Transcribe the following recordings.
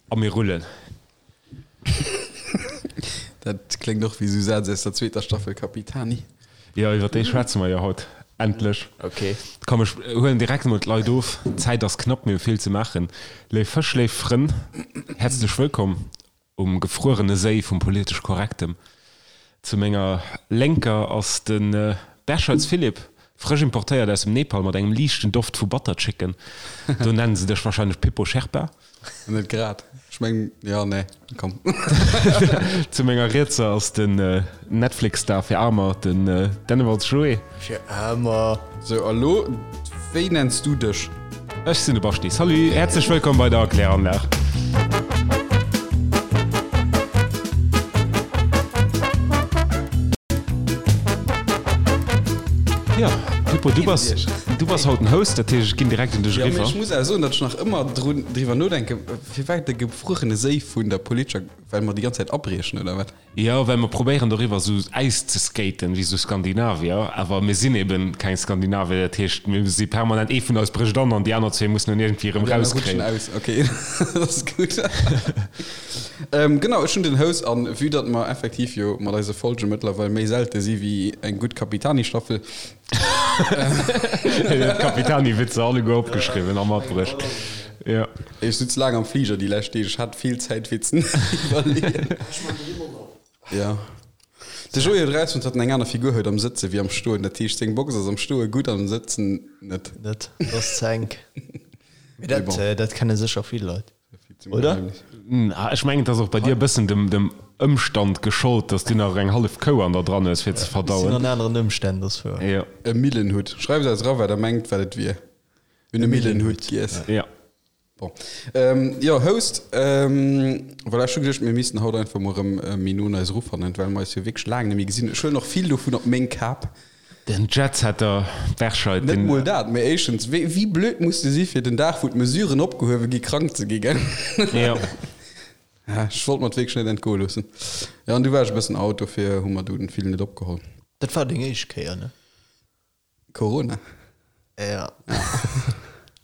A mir rullen. Dat kléngt och wéi esou Sätz aus der zweeter Staffel Capitani. Jo, iwwer déi schwätze mer jo haut. Endlech. Ok. Komm, ech huelen direkt emol d'Leit of. D'Zäit ass knapp, mir hu vill ze maachen. Léif Fësch, léif Frënn, häerzlech wëllkomm um gefruerene Séi vum politesch Korrektem. Zu menger Lénker ass de Berschelz Philippe, frësch importéiert aus dem Nepal mat engem liichten Doft vu Butter Chicken. Do nennen se dech wahrscheinlech Pippo Sherpa. Net grad. Ech mengen, jo, nee, komm. Zu menger Rietser ass den Netflix-Star fir Aarmer, den Dennewalz Joé. Fir Aarmer. Sou, a lo, wéi nenns du dech? Ech sinn de Baschti. Salut, häerzlech wëllkomm bei der Kläranlag. Jo, Pippo, du bass, du bass haut den Host, dat heescht, ech ginn direkt un dech Jo, mee eriwwer. ech muss awer soen, datt ech nach ëmmer drun, driwwer nodenken, firwat de gefruerene Séi vun der politescher, well mer déi ganz Zäit abriechen, oder wat? Jo, well mer probéieren doriwwer esou Äis ze skaten, wéi esou Skandinavier, awer mir sinn eben keng Skandinavier, dat heescht mir si permanent, ee vun eis brécht an an déi aner zwee mussen en iergendwéi erëm Déi aner rutschen rauskréien. aus, ok, dat ass gutt. Genau, ech hunn den Host an vue datt mer effektiv jo mat eise Folge mëttlerweil méi selte si wéi eng gutt Capitani-Staffel, D'Capitani-Witzer alleguer opgeschriwwen a matbruecht. Jo. Ech sutz laang am Fliger déi lescht Deeg, ech hat vill Zäit fir ze iwwerleeën. Jo. De Joé huet erausfonnt, datt en eng aner Figur huet am Sëtze wéi am Stoen. Dat heescht, seng Box ass am Stoe gutt, am Sëtzen net. Net, dat ass ze enk. Mee Mee dat, bon. dat kenne sécher vill Leit. Oder? Ech mengen, et ass och bei dir e bëssen dem Ëmstand geschollt, dass du nach eng hallef Kou an der dran hues fir ze verdauen. Sinn an aneren Ëmstänn, dat ass wouer. Jo. E Millenhutt. Schreift eis era wat der mengt wat et wier. Mir hunn e Millenhutt giess. Jo. Bon. Jo, Host, voilà, ech hu geduecht, mir missten haut einfach mol erëm méi no un eis erufannen, well mer eis jo wierklech laang net méi gesinn hunn. Ech huelen och vill dovun op meng Kap. Den Jetsetter Berscheid, Net den. mol dat, mee éischtens, wéi, wéi blöd muss de si fir den Dag wou d'Mesuren opgehuewe gi krank ze gi, gell? Jo. Ja, ech wollt mer et wierklech net entgoe loossen. Jo, an du war ech e bëssen out, dofir hu mer dunn vill net opgeholl. Dat war deng éischt Kéier, ne? Corona? Ja.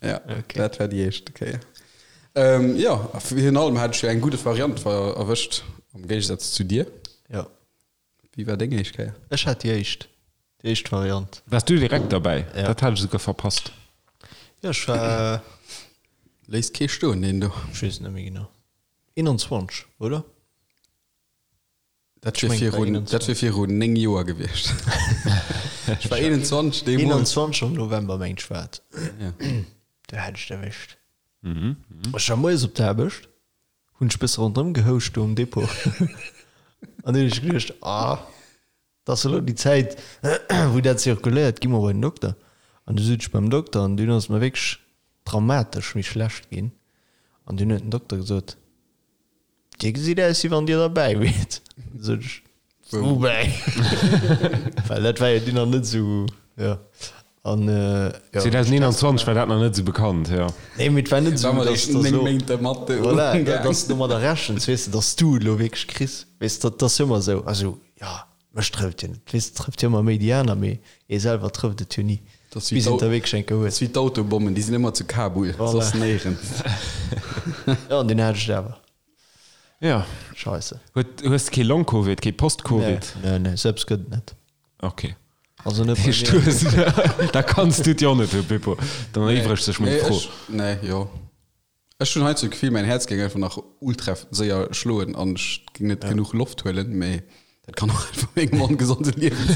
Ja, Okay. dat war déi éischt Kéier. Ähm, jo, a virun allem hat ech jo eng gudde Variant ver erwëscht, am Géigesaz zu dir. Jo. Wéi war deng éischt Kéier? Ech hat déi éischt, déi éischt Variant. Waars du direkt derbäi? Ja. Dat hat ech esouguer verpasst. Jo, ech war. Léisst kee stoen, deen do. Ech weess et net méi genau. 21, oder? Dat Ech wier mengen, et war virun, dat 21. wier virun 9 Joer gewiescht. Ech war 21 deemools. 21 am November, mengt ech, war et. Ja. Do hat ech et erwëscht. Ech war moies op der Aarbecht. Hunn ech bësse ronderëm gehouscht do um Depot an hunn ech geduecht, ah, dat ass elo déi Zäit, wou dat zirkuléiert, gi mer bei den Dokter. An du sot ech beim Dokter an dunn ass et mer wierklech dramatesch méi schlecht ginn an dunn huet den Dokter gesot, Dir gesitt aus, wéi wann Dir derbäi wiert. Sot ech, Woubäi? Well dat war jo dunn nach net esou, jo. An, jo. 2021 war dat nach net esou bekannt, jo. Nee, mee et war net esou, War mer dass, eréischt dass 9 elo, Méint dermat voilà, umgaang. dass du domadder rechens, weess de, dass du et elo wierklech kriss. Weess de, dat ass jo ëmmer esou. Also, jo, mech trëfft jo net. Weess de, trëfft jo ëmmer méi déi aner, mee ee selwer trëfft et jo ni, Dat ass wéi bis een et da wierklech eng Kéier Dat huet. ass wéi d'Autobommen, déi sinn ëmmer zu Kabul, Voilà. soss néierens. Jo, an deen hat ech et awer. Ja. Scheisse. Huet, hues de kee Long-Covid, kee Post-Covid? Nee, nee, sou eppes gëtt et net. Ok. Also net bei Heescht, mir. du hues, da kanns du et jo och net hunn, Pippo. Dann er'iwwregt sech meng Nee, Fro. ech, nee, jo. Ech hunn heiansdo d'Gefill, mäin Häerz géing einfach nach ultra séier schloen an ech géing net genuch Loft huelen, mee dat kann och einfach mengem ongesonde Liewen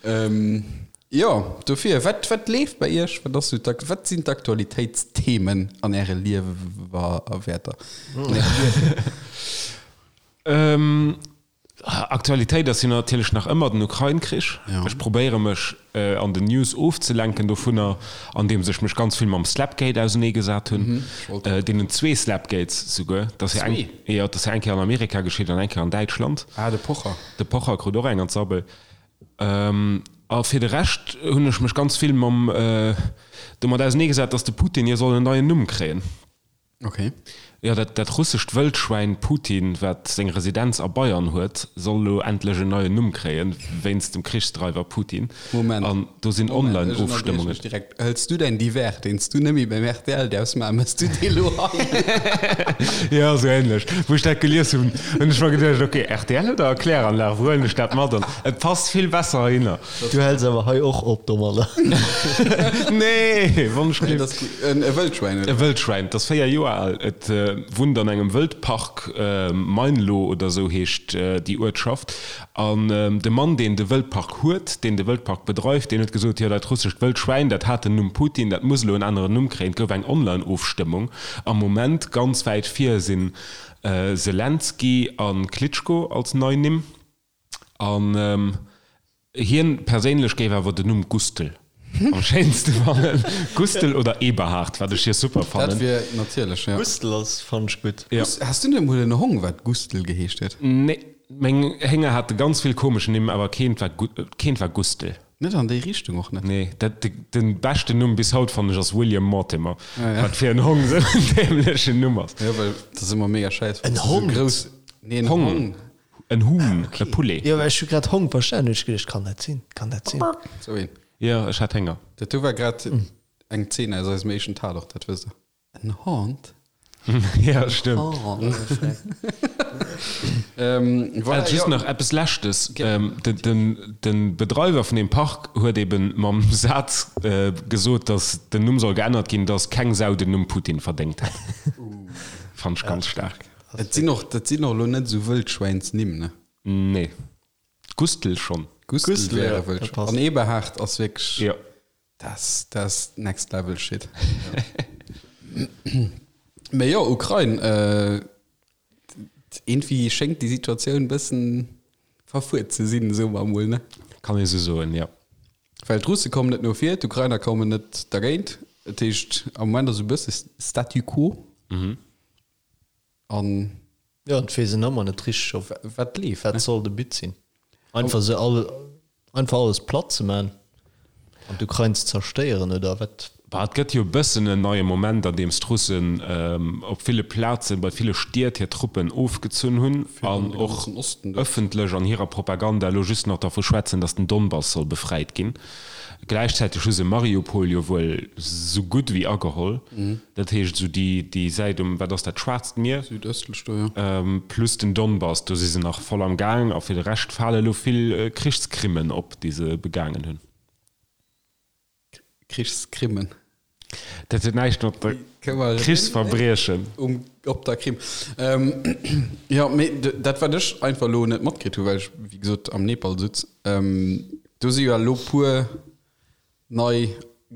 sinn. Jo, dofir, wat, wat leeft bei Iech? Wat ass sou d'Ak-, wat sinn d'Aktualitéitsthemen an Äre Liewer a Wäerter? Ähm, Aktualitéit ass jo natierlech nach ëmmer den Ukrain-Krich. Ja. Ech probéiere mech an den News ofzelenken dovunner, andeems ech mech ganz vill mam Slapgate auseneegesat hunn. Deenen zwee Slapgates souguer. Dat ass jo eng, jo, dat ass jo eng Kéier an Amerika geschitt an eng Kéier an Däitschland. Ah, de Pocher. De Pocher krut och eng an d'Sabbel. A fir de Rescht hunn ech mech ganz vill mam domat auseneegesat, datt de Putin jo soll en neien Numm kréien. Okay. Jo, dat, dat russescht Wëldschwäin Putin, wat seng Residenz a Bayern huet, soll elo endlech en neien Numm kréien, wéinst dem Krichsdreiwer Putin. Moment. An do sinn Moment, ech ënnerbriechen Online-Ofstëmmungen. dech direkt. Hëls du däin Divers, deen s du nëmme beim rtl däerfs maachen, méchs du dee lo hei? Jo, esou ähnlech. Wou ech dat gelies hunn, hunn ech mer geduecht, ok, rtl oder Kläranlag, wou huelen ech dat mat? An et passt vill besser heihinner. Du häls awer hei och op domadder. Nee, wann ech Nee, dat ass gutt. En e Wëldschwäin, E oder? Wëldschwäin, 't ass 4 Joer al. Et wunnt an engem Wëldpark, Meinlo oder esou heescht déi Uertschaft. An de Mann, deen de Wëldpark huet, deen de Wëldpark bedreift, deen huet gesot, jo, dat russescht Wëldschwäin, dat hat den Numm Putin, dat muss elo en aneren Numm kréien. Et gouf eng Online-Ofstëmmung. Am Moment ganz wäit vir sinn Selenskyj a Klitschko als nei Nimm. An hien perséinlech géif awer den Numm Gustl am schéinste fannen. Gustl oder Eberhard, wat ech hir super fannen. Dat wier natierlech, ja. Gustl ass fann ech gutt. Ja. Has du net emol en Hong wat Gustl geheescht huet? Nee, meng Hénger hate ganz vill komesch Nimm, awer keent war keent war Gustl. Net an déi Richtung och net. Nee, dat de beschten Numm bis haut fannen ech ass William Mortimer, Ah, ja. wat fir en Hong esou en dämlechen Numm ass. Jo, well dat ass ëmmer mega schäiss, En wann s du esou Hond? grouss, nee, en Hong. Hong. En Huhn, e Poulet. Jo, ech hu grad Hong verstanen, hunn ech geduecht, kann dat sinn, kann dat sinn? Sou een. Jo, ech hat Hénger. Dat do war grad eng Zeen aus eisem éischten Tatort, dat wësst der. En Hond? Ja, stëmmt. Hond. Voilà, Just jo. nach eppes Leschtes, De Bedreiwer vun deem Park huet eben mam Saz gesot, datt den Numm soll geännert ginn, datt keng Sau den Numm Putin verdéngt hätt. Fand ech ganz staark. Et sinn och, dat sinn och elo net esou Wëldschwäinsnimm, ne? Nee. Gustl schonn. Gustl Gustl, wär ja, e dat Wëldschwäin. passt. An Eberhard ass wierklech, Jo. dat dat ass next level shit. Mee jo, Ukrain, äh, iergendwéi schéngt déi Situatioun bëssen verfuert ze sinn, soe mer emol, ne? Kann ee sou soen, jo. Well d'Russe kommen net no vir, d'Ukrainer kommen net dergéint. Dat heescht, am Moment ass esou e bësse Statu quo. An. Jo, an et weess een ëmmer net richteg, op wat leeft, wat soll de But sinn. Einfach se all, einfach alles platt ze man an d'Ukrain ze zerstéieren, oder wat? Bah, et gëtt jo e bëssen en neie Moment, an deem d'Russen op ville Plazen, bei ville Stied hir Truppen ofgezunn hunn an och ëffentlech an hirer Propaganda elo just nach dervu schwätzen, datt den Donbass soll befreit ginn. Gläichzäiteg hu se Mariupol jo wuel sou gutt ewéi ageholl. Dat heescht esou déi, déi Säit um, wat ass dat, Schwaarzt Mier? Südëstlech do, jo. Plus den Donbass, do si se nach voll am Gaang. A fir de Rescht fale elo vill Krichskrimmen op, déi se begaangen hunn. Krichskrimmen. Dat huet näischt mat der Krichsverbriechen. Um, op der Krim. Ähm, jo, mee dat wat ech einfach elo net matkritt hu, well ech wéi gesot am Nepal sutz, ähm, do si jo elo puer nei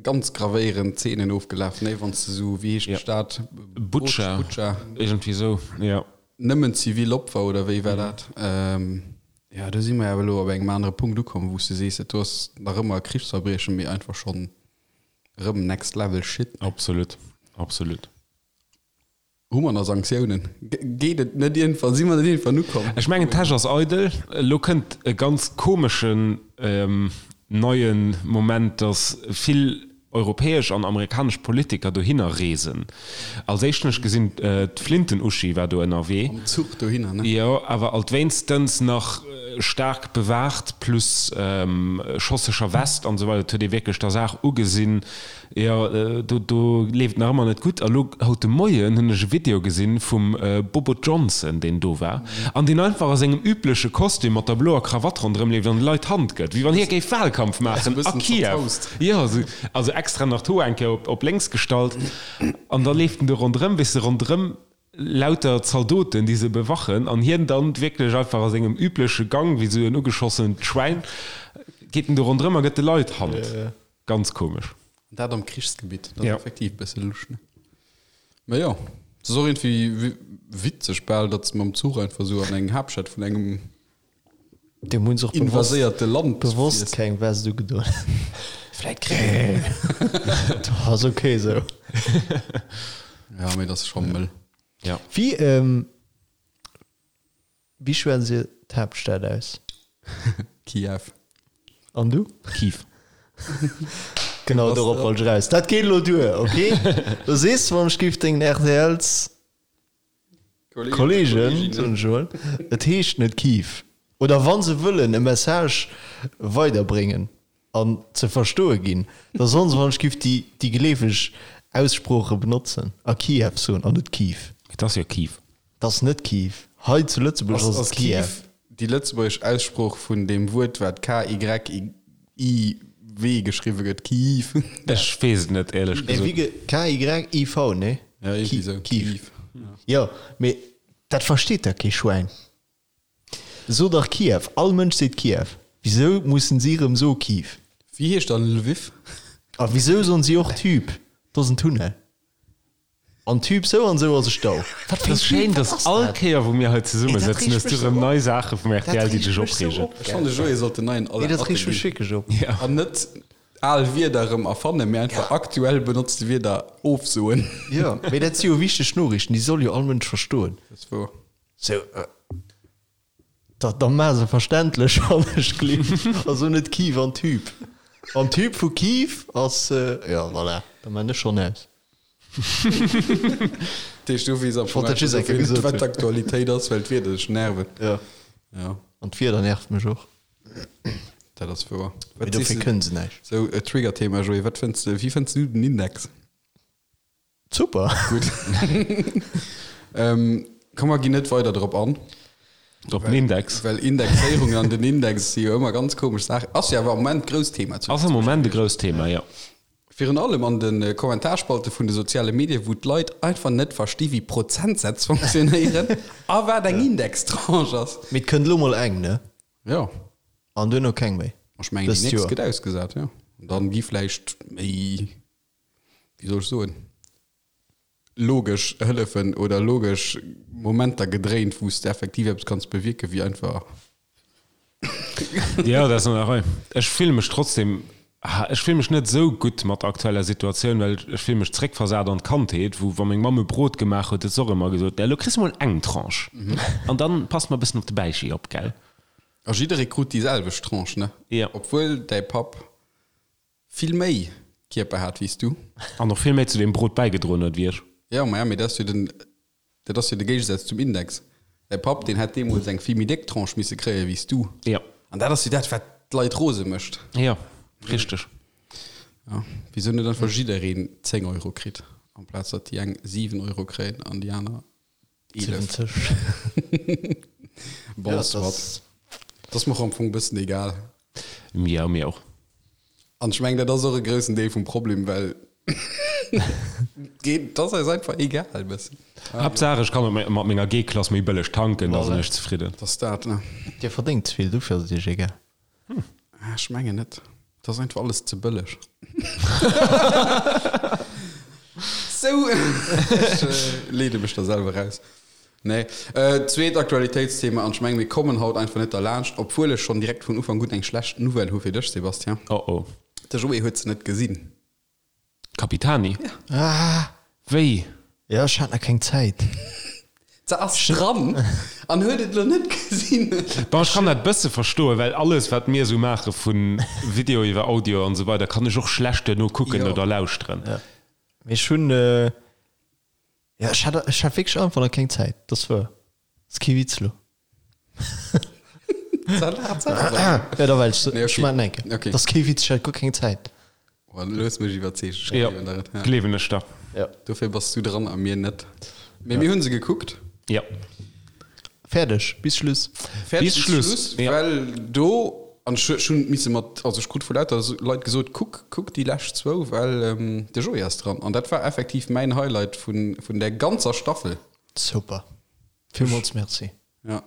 ganz gravéierend Zeenen ofgelaf, ne, wann s de sou, wéi heescht d'Stad? Butscha, Butscha. Iergendwéi sou, jo. Nëmmen zivil Opfer, oder wéi war dat? Ähm, jo, do si mer awer elo op engem anere Punkt ukomm, wou s de sees, dat do ass nach ëmmer e Krichsverbriechen, mee einfach schonn Rëm next level shit. Absolut, absolut. Hu mer nach Sanktiounen? Geet et net iergendwann, si mer net iergendwann ukomm? Ech mengen d'Täsch ass eidel. Elo kënnt e ganz komeschen neie Moment, datt vill europäesch an amerikanesch Politiker dohinner reesen. Als éischt hunn ech gesinn, d'Flinten-Uschi war do ënnerwee. Mam Zuch dohinner, ne? Jo, awer alt wéinstens nach staark bewaacht, plus schosseger West an esou weider. Et huet ee wierklech der Saach ugesinn, jo, do, do leeft et nach ëmmer net gutt. A lo haut de Moien hunn ech e Video gesinn vum Bobo Johnson, deen do war an deen einfach a sengem übleche Kostüm mat der bloer Krawatt ronderëm leeft an de Leit d'Hand gëtt, wéi wann hie géif Wahlkampf maachen a Kiew. Jo, also extra nach d'Hoer eng Kéier op lénks gestallt an da leeft en do ronderëm, weess de, ronderëm lauter Zaldoten, déi se bewachen, an hien dann wierklech einfach a sengem übleche Gang, wéi esou en ugeschossent Schwäin, geet en do ronderëm a gëtt de Leit d'Hand. Ganz komesch. An dat am Krichsgebitt, dat ass effektiv e bësse lusch, ne? Mä jo, et ass och iergendwéi witzeg bal, datt se mam Zuch einfach esou an eng Haaptstad vun engem Dem hunn se och bewosst, invaséierte Land bewosst fiers. keng Vest ugedoen. Vläit kréien. Ass ok esou. Ja, mee dat ass scho mëll. Ja. Wéi, ähm, wéi schwätzt Dir d'Haaptstad aus? Kiew. An du? Kiew. Genau dorop wollt ech eraus. Dat geet elo duer, ok? Do sees de, wann ech géif dengen RTLs. Kollegen, soen ech emol, et heescht net Kiew. Oder wa se wëllen e Message weiderbréngen an ze verstoe ginn, da sollen se wann ech giff déi déi geleefeg Aussprooche benotzen a Kiew soen an net Kiew. Et ass jo Kiew. Et ass net Kiew. Hei zu Lëtzebuerg ass et Kiew. Ass Kiew déi lëtzebuergesch Aussprooch vun deem Wuert, wat K-Y-I-W geschriwwe gëtt, Kiew? Ech weess et net, éierlech gesot. Wéi ge K-Y-I-V, nee? Ja, iergendwéi esou. Kiew. Jo, mee dat versteet da kee Schwäin. So dach Kiew, all Mënsch seet Kiew. Wisou mussen si rëm so Kiew? Wéi heescht dann Lwiw? A wisou soen si och Tüb? Do ass en Tunnel. An Tüb sou an sou ass e Stau. Wat fir en Schéin, dass all Kéier wou mir hei zesumme sëtzen, hues du rëm nei Saache vum rtl déi dech opreegen. Ech fannen de Joé sollt den neien Alain Atten ginn. An net al Wierder erëm erfannen, mee einfach aktuell benotzte Wierder ofsoen. Jo, mee dat si jo wichteg Noriichten, déi soll jo all Mënsch verstoen. Dat ass wouer. Sou, da, da maach se verständlech an ech gleewen, also net Kiew an Typ. An Typ vu Kiew ass, jo, voilà, da maan ech schonn aus. Dat heescht, du weess am Fong Wollt dat just eng Kéier einfach gesot net, wat hunn. d'Aktualitéit ass, well d'Wieder dech nerven. Jo. Jo. An d'Wieder nervt mech och. Dat ass wouer. Mee Wat dofir sees de, kënne se näischt. sou e Trigger-Thema, Joé, wat fënns de, wéi fënns du den Index? Super! Gutt. Ähm, komm, mer ginn net weider drop an. Op den Index. Well Indexéierung an den Index si jo ëmmer ganz komesch Saachen. Ass jo awer am Moment grousst Thema zu Ass am Moment e grousst Thema, jo. Virun allem an de Kommentarspalte vun de soziale Medien, wou d'Leit einfach net versti wéi Prozentsätz funktionéieren a wat eng Indextranche ass. Mee et kënnt elo mol eng, ne? Jo. An duerno keng méi. Ech mengen, déi Dëst nächst Joer. gëtt ausgesat, jo. An dann gi vläicht méi, wéi soll ech soen, logesch Hëllefen oder logesch Momenter gedréint, wou s de effektiv eppes kanns bewierken, wéi einfach. Jo, dat ass an der Rei. Ech fille mech trotzdem, ech fille mech net esou gutt mat der aktueller Situatioun, well ech fille mech zréckversat an d'Kandheet, wou, wa meng Mamm e Brot gemaach huet, huet se och ëmmer gesot, Elo kriss de mol eng Tranche an dann pass mer e bëssen op de Bäichi op, gell? A jidderee krut déi selwecht Tranche, ne? Jo. Obwuel däi Papp vill méi Kierper hat wéi s du. An och vill méi zu deem Brot bäigedroen huet wéi ech. Jo, maja, mee dat ass jo den, dat ass jo de Géigesaz zum Index. Däi Papp, deen hätt deemools eng vill méi déck Tranche misse kréie wéi s du. Jo. An dat ass jo dat, wat d'Leit rose mécht. Jo, richteg. Jo, wisou net einfach jiddereen 10 Euro kritt, amplaz datt déi eng 7 Euro kréien an déi aner 11. 70. Bon, Ja, soit. das- Dat ass mer och am Fong e bëssen egal. Jo, mir och. An ech mengen, dat ass och e groussen Deel vum Problem, well geet, dat ass eis einfach egal e bëssen. Haaptsaach ech kann mat menger G-Klass méi bëlleg tanken, da sinn ech zefridden. Dat ass dat, ne? Dir verdéngt ze vill, dofir ass et iech egal. Ah, ech mengen net. Dat ass einfach alles ze bëlleg. Sou, ech leede mech da selwer raus. Nee. Zweet Aktualitéitsthema, an ech mengen, mir kommen haut einfach net derlaanscht, obwuel ech schonn direkt vun Ufank un eng schlecht Nouvelle hu fir dech, Sébastien. Oh oh. De Joé huet se net gesinn. Capitani? Ja. Ah! Wéi? Ja, ech hat nach keng Zäit. Se ass dran an huet et lo net gesinn. Bon, ech kann dat bësse verstoen, well alles wat mir esou maache vu Video iwwer Audio an esou weider kann ech och schlecht duerno kucken Jo. oder lauschteren. Ja. Mee ech hunn, ja, ech hat, ech hat wierklech einfach nach keng Zäit. Dat ass wuer. Ass kee Witz lo. Ja, da well ech, Nee, ech okay. maachen enke. Okay. Dat ass kee Witz, ech hat guer keng Zäit. Oh, looss mech iwwerzeegen. Ech Jo, gleewen der et. Ja. gleewen ech der. Ja. Dofir bass du dran a mir net. Mee mir hunn se gekuckt. Ja. Fäerdeg, bis Schluss. Fäerdeg Bis Schluss, ja. Well do, an ech ech hunn misse mat, also ech krut vu lauter Leit gesot, kuck, kuck déi lescht zwou, well de Joé ass dran. An dat war effektiv mäin Highlight vun, vun där ganzer Staffel. Super. Villmools Merci. Ja.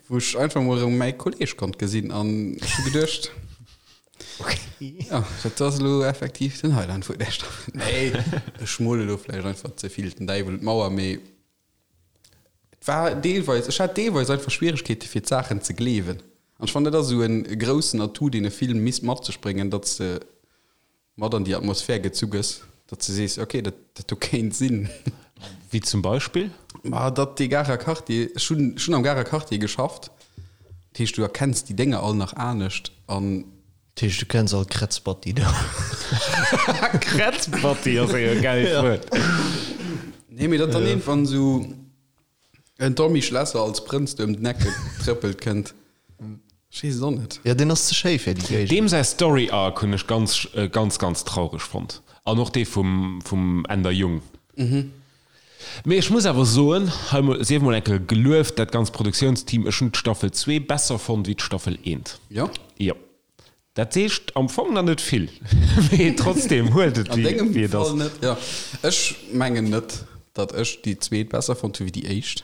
Wou ech einfach mol erëm mäi Kolleg konnt gesinn an ech hu geduecht, Okay. ja, dat ass elo effektiv den Highlight vun där Staffel. Nee, ech mole elo vläicht einfach ze vill den Däiwel un d'Mauer, mee et war deelweis, ech hat deelweis einfach Schwieregkeete fir d'Saachen ze gleewen. An ech fannen, dat ass esou e groussen Atout, deen e Film misst mat sech bréngen, datt s de mat an déi Atmosphär gezu gëss, datt s de sees, ok, dat, dat do kéint sinn. Wéi zum Beispill? Ma datt dee Garer Quartier, ech hunn, ech hunn am Garer Quartier geschafft, dat heescht, du erkenns déi Dénger all nach anescht an. Dat heescht, du kenns all Krätzbatti do. Krätzbatti ass e gäilt Wuert. Nee, mee datt dann iergendwann esou. En Tommy Schlesser als Prënz do ëm den Eck getrëppelt kënnt. Ech weess et och net. Jo, deen ass ze schéi fir déi Géigend. Deem säi Story Arc hunn ech ganz, ganz, ganz traureg fonnt. An och dee vum, vum Änder Jung. Mee ech muss awer soen, hei mol, sief mol eng Kéier gelueft, dat ganzt Produktiounsteam, ech hunn d'Staffel zwee besser fonnt wéi d'Staffel eent. Jo? Jo. Dat seescht am Fong nach net vill, mee trotzdem huelt et An dengem wéi et ass. Fall net, jo. Ech mengen net, datt ech déi zweet besser fonnt hu wéi déi éischt.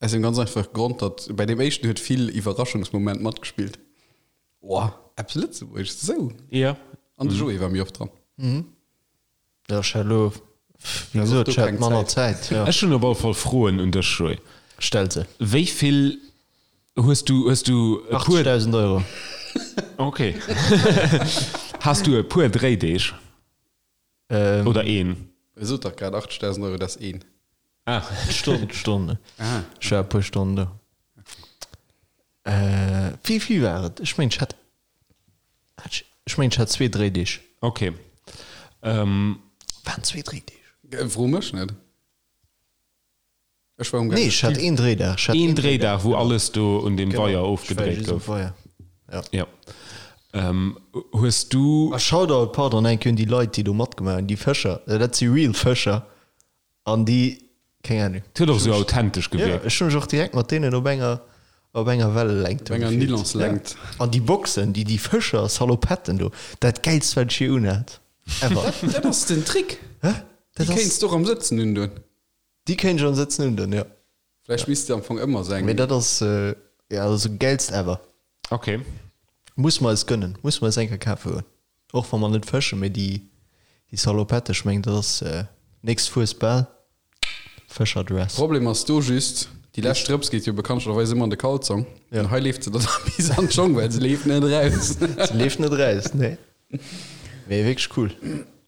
Aus dem ganz einfache Grond, datt bei deem éischten huet vill Iwwerraschungsmoment matgespillt. Oh, eppes Lëtzebuergesches, esou. Jo. An de Joé war méi oft dran. Jo, ech hat elo, wéi gesot, ech hat manner Zäit, jo. Ech hunn op alle Fall Froen un dech, Joé. Stell se. Wéi vill hues du, hues du e puer. 80.000 Euro. Ok. Has du e puer Dréideeg? Oder een? E sot dach grad 80.000 Euro, dat ass een. Ah. Stonn, Stonn. Ah. Ech war e puer Stonnen do. Wéi vill war et? Ech mengen, ech hat, hat ech, ech mengen, ech hat zwee Dréideeg. Ok. Waren zwee Dréideeg? Fro mech net. Ech war um Nee, ech hat een Dréidag. Ech hat Een Dréidag, wou alles do un deem Weier ofgedréit gouf. Weier. Ja. Ja. Hues du. A Shoutout, pardon, eng Kéier un déi Leit, déi do matgemaach hunn, déi Fëscher. Dat si real Fëscher. An déi, keng Ahnung. Et huet och esou authentesch gewierkt. Ja, ech hu mech och direkt mat deenen op enger, op enger Wellelängt Op enger Nylonslängt. Ja. An déi Boxen, déi, déi Fëscher Salopetten do, dat gäilst wat ech je unhat. Ever. Dat ass den Trick. Hä? Déi kéints de och am Sëtzen undoen. Déi kéint ech am Sëtzen undoen, jo. Vläicht misst de am Fong ëmmer sou eng. Mee dat ass, jo, dat ass gäilst ever. Ok. Muss mer eis gönnen, muss mer eis eng Kéier kafe goen. Och wa mer net fëschen, mee déi, déi Salopette, ech mengen dat ass nächst Fuesbal, Fëscherdress. Problem ass do just, déi lescht Drëps geet jo bekanntlecherweis ëmmer an de Kalzong. An hei leeft se dann bis an d'Schong, well se leeft net eraus. Se leeft net eraus, nee. Mee wierklech cool.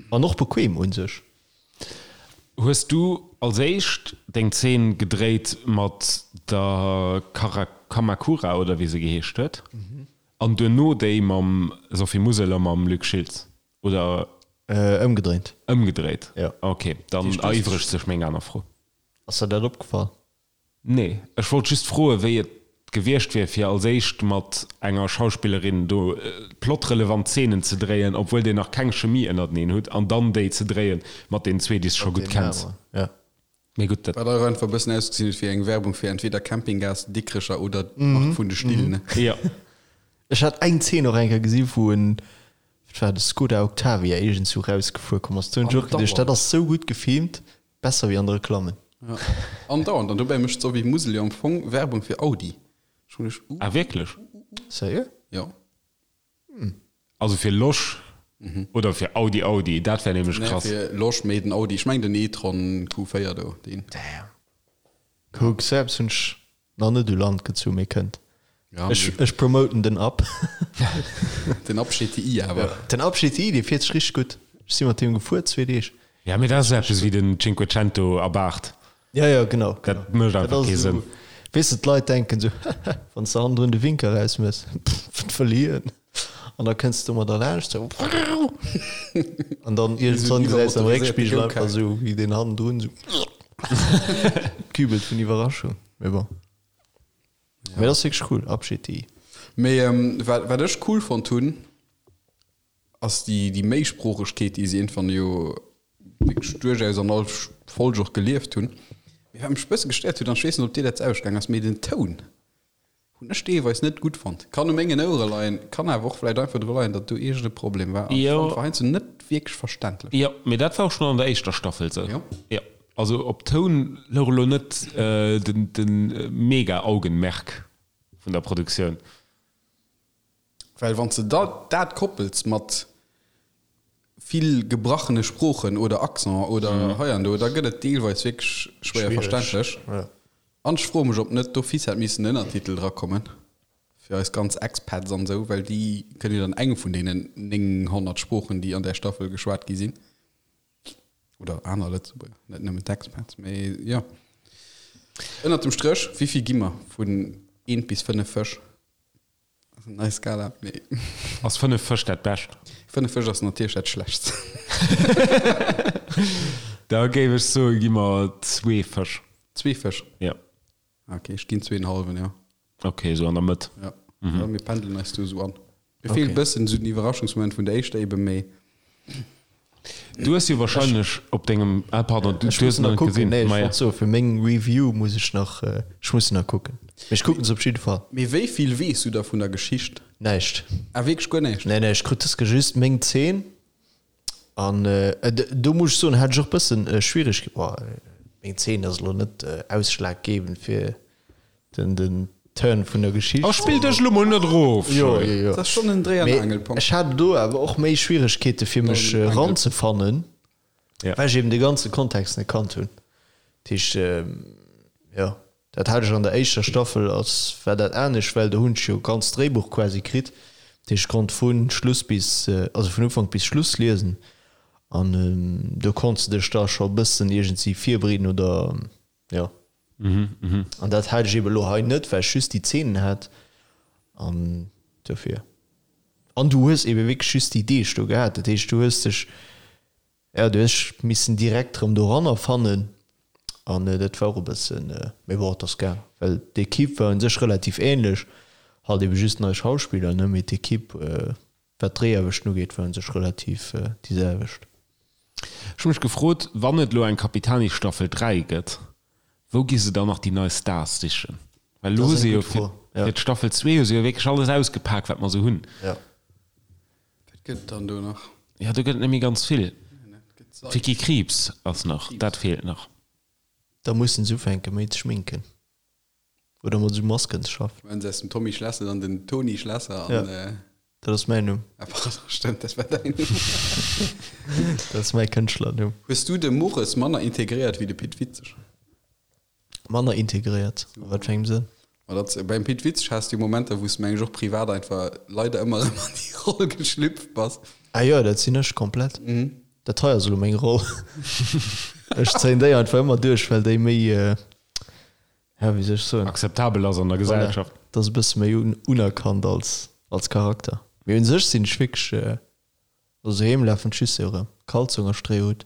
An och bequem un sech. Hues du als éischt deng Zeen gedréit mat der Kamakura oder wéi se geheescht huet an duerno déi mam Sophie Musel a mam Luc Schiltz oder? Ëmgedréint. Ëmgedréit, Jo. Ok, dann eriwwregt sech meng aner Fro. Ass der dat opgefall? Nee, ech wollt just froen, wéi et gewiescht wier, fir als éischt mat enger Schauspillerin do plotrelevant Zeenen ze dréien, obwuel dir nach keng Chemie ënnerteneen hutt, an dann déi ze dréien mat deenen zwee, déi s de scho gutt kenns. Mee gutt, dat. Wat och einfach e bëssen ausgesinn huet wéi eng Werbung fir entweder Campinggas Dikrecher oder d'Mark vun de Still, ne? Jo. Ech hat eng Zeen och eng Kéier gesi wou en, wat war dat, Skoda Octavia iergendswou rausgefuer komm ass. Do hunn ech och geduecht, dat ass sou gutt gefilmt, Besser wéi an de Reklammen. Ja, andauernd. An dobäi mécht d'Sophie Musel jo am Fong Werbung fir Audi. Ech hunn ech. Ah wierklech? Sérieux? Jo. Also fir Losch oder fir Audi Audi? Dat wär nämlech krass. Nee, fir Losch, mee den Audi. Ech mengen den e-tron Q4 do, deen. Damn. Kuck, sou eppes hunn ech Nach net u Land gezu, mee kënnt. Ja, Ech, ech promoten den Up. Den Up GTI awer. Den Up GTI, dee fiert sech richteg gutt. Ech si mat deem gefuer, zwee Deeg. Ja, mee dat ass eppes wéi den Cinquecento Abarth. Ja, ja, genau. Dat mécht einfach kee Sënn. Weess de, d'Leit denken esou, wann s de hannendrun de Winker erausmëss, pff, wat wëll hien? An da kënns de domadder laanscht, esou, an dann iergendwann gesäis de am Réckspigel einfach esou, wéi deen hannendrun esou kübelt vun Iwwerraschung. Mee bon. Mee dat ass wierklech cool, Up GTI. Mee wat, wat ech cool fonnt hunn, ass déi, déi Méisproochegkeet, déi se iergendwann jo wierklech duerchaus an all Folg och gelieft hunn. Mee wat mech e bësse gestéiert huet, an ech weess net, ob dir dat ausgaang ass, mee den Toun hunn ech deelweis net gutt fonnt. Kann u mengen Ouere leien, kann awer och vläicht einfach dru leien, datt do iergend e Problem war. An ech fand, war heiansdo net wierklech verständlech. Jo, mee dat war och schonn an der éischter Staffel sou. Jo. Jo. Also op Toun louch elo net de mega Augenmerk vun der Produktioun. Well wann s de da dat koppels mat vill gebrachene Sproochen oder Accent oder hei an do, da gëtt et deelweis wierklech schwéier verständlech. An ech froe mech, ob net d'office hätt missen en Ënnertitel drakommen fir eis ganz Expats an esou, well déi kënnen jo dann eng vun deenen 900 Sproochen, déi an där Staffel geschwat gi sinn. Oder aner Lëtzebuerger, net nëmmen d'Expats, mee jo. Ënnert dem Stréch, wéi vill gi mer vun eent bis 5 Fësch? Ass eng nei Skala, mee. Ass 5 Fësch dat Bescht? 5 Fësch ass natierlech dat Schlechtst. Da géif ech soen, gi mer zwee Fësch. Zwee Fësch? Ja. Ok, ech ginn zween hallwen, jo. Ok, esou an der Mëtt. Ja, ja mir pendelen eis do esou an. Mir feelt e bëssen esou den Iwwerraschungsmoment vun der éischter eben, mee. Du hues jo wahrscheinlech op dengem, ah pardon, du Ech hues muss nach nach net kucken, gesinn. nee, ech Maja. wollt soen, fir meng Review muss ech nach, ech muss se nach kucken. Mee ech kucken se op jidde Fall. Mee wéi vill weess du da vun der Geschicht? Näischt. Ah, wierklech guer näischt? Nee, nee, ech krut dës just meng Zeen an do muss ech soen, hat ech och bëssen Schwierigkeeten, bon, meng Zeen ass elo net ausschlaggebend fir Den, den Turn vun der Geschicht. Oh, spill dech elo mol net erof! Jo, jo, jo. Dat ass schonn en Dréi an Mee Angelpunkt. ech hat do awer och méi Schwieregkeete fir mech eranzefannen, Ja. well ech eben de ganze Kontext net kannt hunn. Dat heescht, jo, dat hat ech an der éischter Staffel, ass, war dat anescht, well do hunn ech jo ganz Dréibuch quasi kritt. Dat heescht, ech konnt vu Schluss bis, also vun Ufank bis Schluss liesen an do konns de dech da scho e bëssen iergendwéi virbereeden oder, jo. An dat hat ech eben elo hei net, well ech just déi Zeenen hat an dofir. An du hues eben wierklech just déi Deeg do gehat, dat heescht du hues dech, jo du hues dech missen direkt erëm doranner fannen an dat war och e bëssen, mee bon et ass gaang, well d'Equipe war un sech relativ ähnlech, halt eben just nei Schauspiller ne, mee d'Equipe wat d'Dréiaarbechten ugeet war un sech relativ déi selwecht. Ech hu mech gefrot, wann et elo eng Capitani Staffel 3 gëtt, wou gi se dann nach déi nei Stars sichen? Well elo hu se jo fir d'Staffel 2 hu se jo wierklech alles ausgepak, wat mer esou hunn. Wat gëtt et dann do nach? Jo, do gëtt et net méi ganz vill. D'Vicky Krieps ass nach, dat feelt nach. Da mussen se ufänke méi ze schminken. Oder mat esou Masken ze schaffen. Maachen se aus dem Tommy Schlesser dann den Toni Schlesser an. Ja, dat ass mäin Numm. Ah pardon, stëmmt, dat war däin Numm. Dat ass mäi Kënschtlernumm. Hues du de Mores manner integréiert wéi de Pit Witzeg? Manner integréiert? A wat fir engem Sënn? Ma dat, beim Pit Witzeg has du Momenter, wou s du meng ech och privat einfach leider ëmmer erëm an déi Roll geschlüpft bass. Ah jo, dat sinn ech komplett. Dat hei ass elo meng Roll. Ech zéien déi einfach ëmmer duerch, well déi méi ja, wéi soll ech soen? Akzeptabel ass an der Gesellschaft. Voilà, dat ass e bësse méi unerkannt als, als Charakter. Mee un sech sinn ech wierklech, also doheem lafen d'Schüsse jo erëm, Kalzong a Stréihut.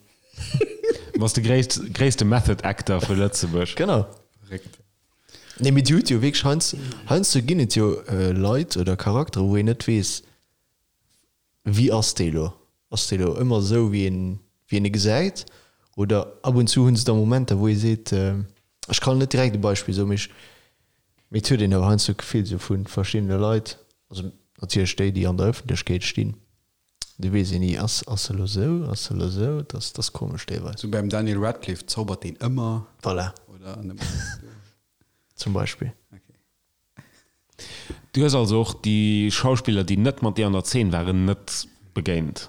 Du bass de gréisst, gréisste Method Actor vu Lëtzebuerg. Genau. Verréckt. Nee, mee Dir hutt jo wierklech heiansdo, heiansdo ginn et jo Leit oder Charakteren, wou een net weess, Wéi ass dee lo? Ass dee lo ëmmer esou, wéi een, wéi een e gesäit? Oder ab und zu hu se da Momenter, wou ee seet, ech kann net direkt e Beispill soen, mee ech, mee et huet een awer heiansdo d'Gefill esou vu verschiddene Leit, also natierlech déi, déi an der Ëffentlechkeet stinn, do weess een ni, ass, ass e lo esou, ass e lo esou? Et ass, et ass komesch deelweis. Sou beim Daniel Radcliffe, zaubert deen ëmmer? Voilà. Oder nëmmen? Zum Beispill. Okay. Du hues also och déi Schauspiller, déi net mat dir an der Zeen waren, net begéint?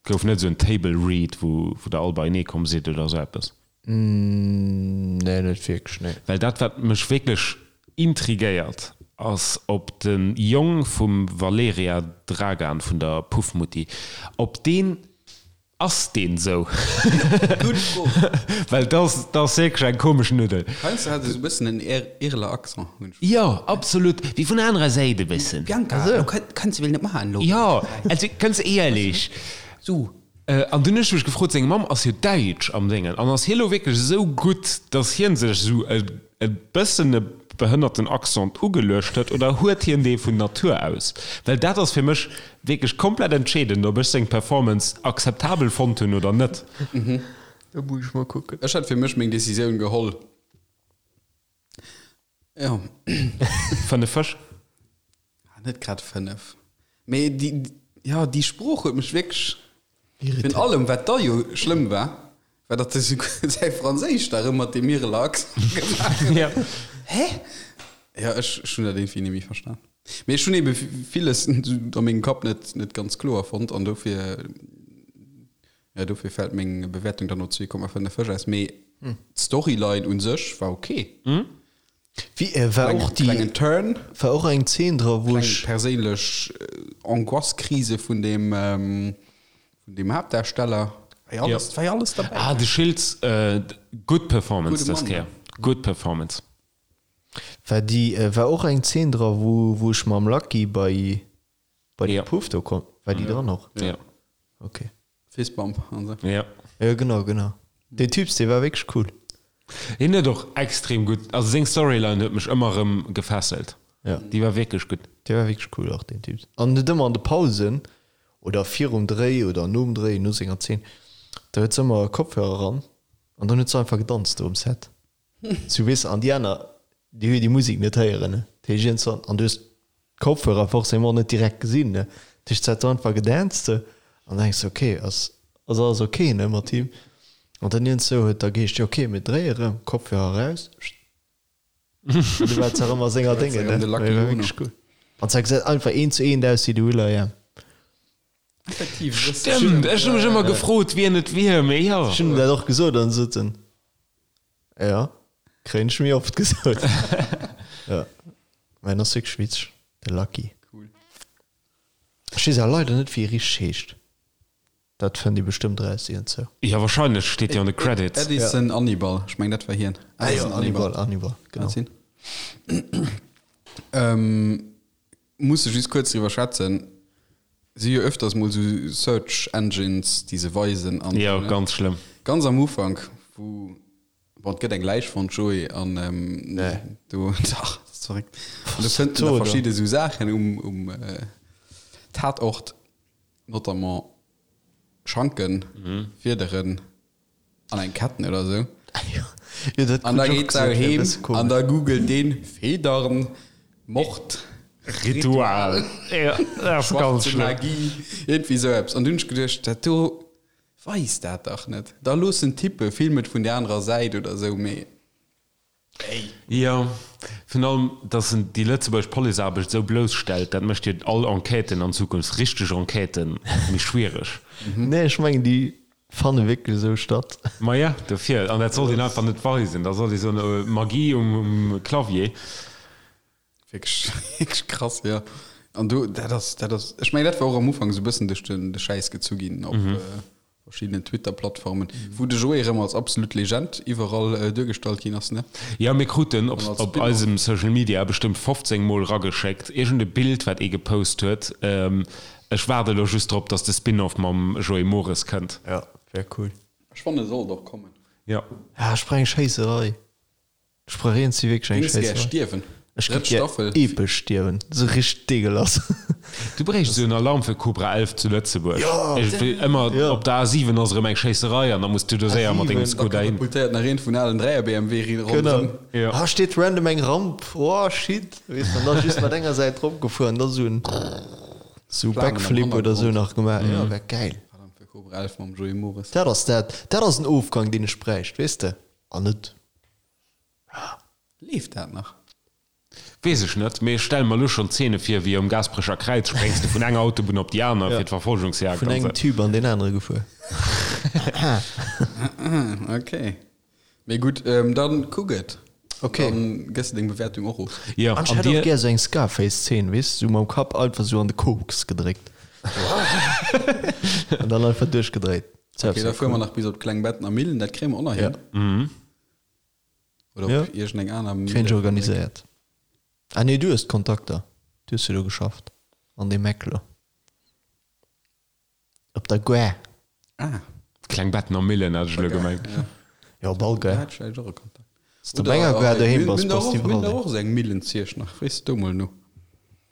Gouf net esou en Table Read, wou der all beienee komm sidd oder esou eppes? Nee, net wierklech, nee. Well dat, wat mech wierklech intrigéiert, ass, ob de Jong vum Valeria Dragan, vun der Puffmutti, ob deen Ass deen sou? Gutt Fro. Well dat ass, dat ass wierklech eng komesch Nuddel. Heiansdo hat e sou e bëssen en Ireler Accent, hunn ech. Jo, absolut. Wéi vun der anerer Säit e bëssen. Bianca, lo kënns de well net maachen elo. Jo, also ganz éierlech. Sou. An dunn hunn ech mech gefrot, seng Mamm ass jo däitsch am Déngen, an ass hie lo wierklech esou gutt, datt hie sech esou e e bëssen e behënnerten Accent ugeluecht huet oder huet hien dee vun Natur aus? Well dat ass fir mech wierklech komplett entscheedend, ob ech seng Performance akzeptabel fonnt hunn oder net. Da muss ech mol kucken. Ech hätt fir mech meng Decisioun geholl. Jo. 5 Fësch? Net grad 5. Mee déi, jo, déi Sprooch huet mech wierklech, virun allem wat da jo schlëmm war, war datt e säi Franséisch da erëm mat deem Ireler Accent gemaach huet. Hä? Jo, ech, ech hunn dat iergendwéi net méi verstan. Mee ech hunn ebe villes a mengem Kapp net, net ganz kloer fonnt an dofir, jo, dofir fält meng Bewäertung dann op 2,5 Fësch aus. Mee d'Storyline u sech war ok. Wie, äh, war och déi, Klengen Turn. war och eng Zeen dra wou Kleng ech, perséinlech Angoisse-Krise vun dem, vun dem Haaptdarsteller. War jo alles, war jo alles derbäi. Ah, de Schiltz, äh, gutt Performance Gudde dës Mann, Kéier. Gutt Performance. war déi, äh, war och eng Zeen dra wou, wou ech mam Lucky bei, bei de Puff do komm, war déi dran och? Ja. Okay. Fistbump an sou. Ja. Jo, genau, genau. Deen Typs, dee war wierklech cool. Hien huet och extrem gutt, also seng Storyline huet mech ëmmer erëm gefesselt. Ja. Déi war wierklech gutt. Dee war wierklech cool och, deen Typ. An huet ëmmer an de Pausen oder virum Dréi oder nom Dréi, no senger Zeen, da huet se ëmmer Kopfhörer eran an dann huet se einfach gedanzt do um Set. Sou weess de, an déi aner, déi hu jo déi Musek net héieren, ne. Dat heescht iergendwann, an du hues d'Kopfhörer forcément net direkt gesinn, ne. Dat heescht, se hat do einfach gedanzt sou an da denks de, ok, ass, ass alles ok, ne, mat him. An dann iergendsou huet da geheescht, jo ok, mir dréie rëm, Kopfhörer eraus, an du war se erëm a senger Déngen, ne. De Lucky War Uno. wierklech cool. An se gesäit einfach eent zu eent aus wéi de Will.i.am. Effektiv, e bëssen. Stëmmt, ech hu mech ëmmer gefrot, wien et wier, mee jo. Ech hunn him dat och gesot an sot en, Jo, kréien ech méi oft gesot. Jo, mä en ass wierklech witzeg, de Lucky. Cool. Ech weess awer leider net, wéi e richteg heescht. Dat fënnt ee bestëmmt eraus iergendzou. Jo, wahrscheinlech steet jo an de Credits. Edison Annibal, ech mengen dat war hien. Ah jo, Annibal, Annibal, genau. Kann sinn. Musse just kuerz driwwer schwätzen, si jo öfters mol sou Search Engines déi se weisen an Jo, ganz schlëmm. Ganz am Ufank wou, bon et gëtt eng Läich fonnt Joé an do, dach dat ass verréckt, an do fënnt en da verschidde sou Saachen um um Tatort, notamment Schanken, Fiederen. An eng Ketten oder sou. Jo, dat An da krut ech och geet se gesot, wär e heem bësse an komesch. da googelt deen Federn, Mord, Ritual. Ja, dat ass ganz schwarze schlëmm. Magie, iergendwéi sou eppes. An du hunn ech geduecht, dat do weist dat dach net. Da looss en tippen, film et vun der anerer Säit oder sou, mee ey. Jo, virun allem, dass en déi lëtzebuergesch Policeaarbecht esou blousstellt, dat mécht jo all Enquêten an Zukunft, richteg Enquêten, méi schwiereg. Nee, ech mengen, déi fanne wierklech esou statt. Maja, dofir. An dat sollt een einfach net weisen. Da sollt ee soen, Magie um Clavier. Wierklech, wierklech krass, jo. An do, dat ass, dat ass, ech mengen, dat war och am Ufank esou e bëssen duerch den, de Schäiss gezu ginn op verschiddenen Twitter-Plattformen, wou de Joé erëm als absolut Legend iwwerall duergestallt ginn ass, ne? Jo, mir kruten op An als op Spin-off. eisem Social Media bestëmmt 15 mol rageschéckt, iergend e Bild, wat ee gepost huet. Ech waarde elo just drop, dass de Spin-off mam Joé Mores kënnt. Jo, wär cool. Ech fannen, e sollt och kommen. Jo. Ja, ech brauch eng Schéisserei. Ech brauch eens déi wierklech eng Géings gär Schéisserei. stierwen? Ech Drëtt géif gär Staffel. epesch stierwen, sou richteg deegelass. Du bréichts esou en Alarm fir Cobra 11 zu Lëtzebuerg. Jo! Iergendwéi ëmmer Jo. op der A7 ass erëm eng Schéisserei an da muss du do séier mat dengem A7. Da Skoda hin. katapultéiert nach een vun alen 3er BMW Genau. ronderëm. Jo. Ah, steet random eng Ramp, oh shit, weess de, an da just mat enger Säit drop gefuer an da sou en sou Flamen am Backflip oder sou Hannergrond. nach gemaach. Jo, wär gäil. Alarm fir Cobra 11 mam Joé Mores. Dat ass dat, dat ass en Ofgang deen ech bräicht, weess de, an net. Leeft dat nach? Weess ech net, mee ech stelle mer elo schonn Zeene vir, wéi um Gaasperecher Kräiz spréngs de vun enger Autobunn op déi aner fir d'Verfolgungsjagd Vun an engem esou. Tube an deen anere gefuer. Ok. Mee gutt, dann kuck et. Ok. Dann gëss de deng Bewäertung och of. Jo, An ech an hätt och dir? gär sou eng Scarface-Zeen, weess, sou mam Kapp einfach sou an de Koks gedréckt. An dann einfach duerchgedréit. Ok, da fuere mer nach bis op d'Klengbettener Millen, dat kréie mer och nach hin. Oder Ja. op iergendeng aner Kréien ech organiséiert. Ah nee, du hues d'Kontakter. Du hues jo do geschafft. An deem Ecklo. Op der Gare. Ah. Klengbettener Millen hat ech elo gemengt. Ja, op all Da Gare. hat ech vläicht och e Kontakt. Wann s de op enger Gare doheem bass, bass de Mir hunn iwwerall der doheem. och esou eng Millen ziesch nach. Frees du do mol no.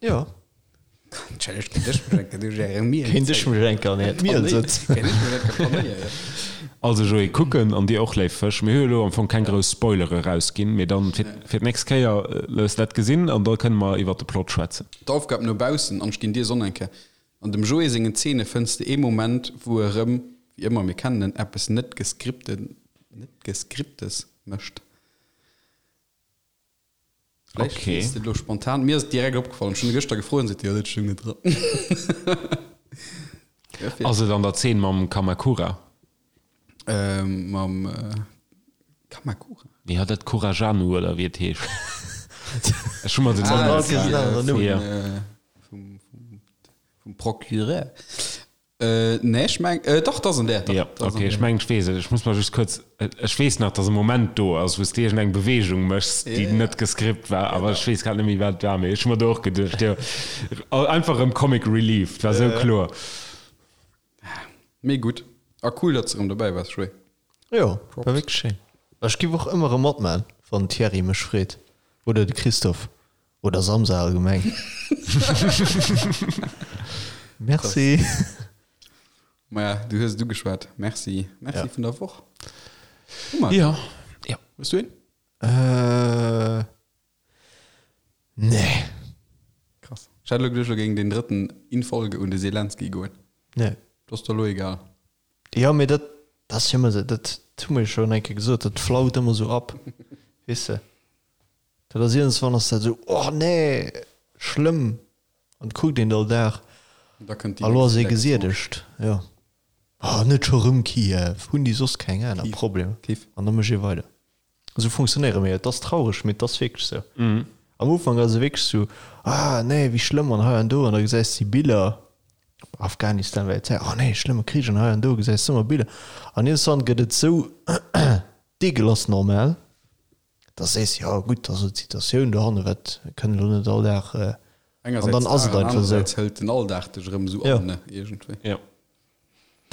Ja. Kéint ech mech enke duerch är Miel Kéint ech mech enke an äert Miel sëtzen. Kéint ech mech enke panéieren, jo. Also Joé, kucken an dir och, léif Fësch. Mir hu jo elo am Fong keng grouss Spoilere rausginn, mee dann fir fir d'nächst Kéier looss dat gesinn an da kënne mer iwwert de Plot schwätzen. D'Aufgab no baussen, an ech ginn dir Sonn eng Kéier. An dem Joé sengen Zeene fënns de ee Moment, wou e rëm, wéi ëmmer, mir kennen en, eppes net geskripten, net geskriptes mécht. Vläicht Okay. weess de et elo spontan. Mir ass et direkt opgefallen. Ech hunn e gëschter gefrot an seet, jo, dat stoung net dran. Dofir. Ass et an der Zeen mam Kamakura? Ähm, mam Kamakura? Jo, dat Kurajanu oder wéi et heescht. Ech hu mer den Ah, Namen dat net ass gemerkt. déi, äh, vum, Ja. äh, vum, vum, vum Procureur. Äh, nee, ech meng, äh, dach, dat ass an där. Dach, Ja, dat ass an okay, ech där. mengen, ech weess et. Ech muss mer just kuerz, ech weess nach, dass e Moment do ass, wou s de iergendeng Beweegung méchs, déi Ja, net gescript war, awer ech weess grad net méi, wat et war. Mee ech hu mer do och geduecht, jo, einfach erëm Comic Relief, et war esou kloer. Mee gutt. A cool, datt s de erëm dobäi waars, Joé. Jo, war wierklech schéin. Ech giff och ëmmer erëm matman, wann den Thierry mech freet. Oder de Christophe. Oder Samsa allgemeng. Merci. Maja, du hues et ugeschwat. Merci. Merci vun der Woch. Hu mer. Jo. Jo. Hues du een? Äh. Nee. Krass. Ech hat elo geduecht, elo géing deen drëtten in Folge un de Selenskyj goen. Nee. Dat ass der elo egal. Jo, mee dat ass jo ëmmer esou, dat hu mer jo schonn eng Kéier gesot, dat flaut ëmmer esou ab, weess de. Dat ass iergendswann ass dat esou, oh nee, schlëmm, an et kuckt een et all Dag, Da kënnt déi a lo ass nächst ee Elektioun. gesiedegt, jo. Oh, net scho rëm Kiew, hunn déi soss keng aner Kiew, Problemer? Kiew. An da mécht ee weider. Esou funktionéiere mir. Et ass traureg, mee et ass wierklech esou. Am Ufank ass et wierklech esou, ah nee, wéi schlëmm an hei an do an da gesäis de déi Biller, Afghanistan war jo d'Zäit, oh nee, schlëmme Krich an hei an do, gesäis de ëmmer Biller an iergendwann gëtt et esou deegelass normal, dass de sees, jo gutt, ass elo d'Situatioun dohanne, wat, mir kënnen elo net all Dag, an dann ass et einfach esou. Engersäits hëlt den Alldag dech erëm esou an, ne, iergendwéi. Jo.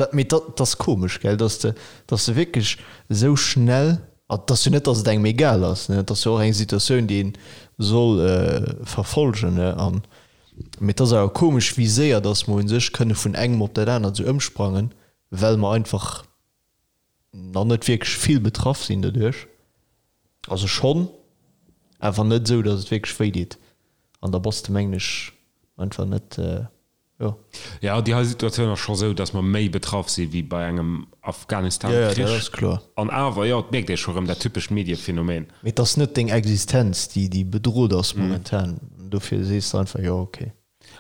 Dat, mee dat ass komesch, gell, dass de, dass de wierklech esou schnell, a et ass jo net, dass et engem egal ass, ne, et ass jo och eng Situatioun, déi een soll verfolgen, ne, an, mee et ass awer komesch, wéi séier dass mer u sech kënne vun engem op dat anert esou ëmsprangen, well mer einfach nach net wierklech vill betraff sinn doduerch, also schonn, awer net esou, dass et wierklech wéi deet, an da bass de, mengen ech, einfach net. Jo. Jo, déi hei Situatioun ass scho sou, datt mer méi betraff si wéi bei engem Afghanistan-Krich. Jo, jo, dat ass kloer. An awer, jo, et mierkt ee scho rëm dat typescht Mediephenomen. Mee et ass net deng Existenz, déi, déi bedrot ass momentan. Dofir sees de einfach, jo, okay.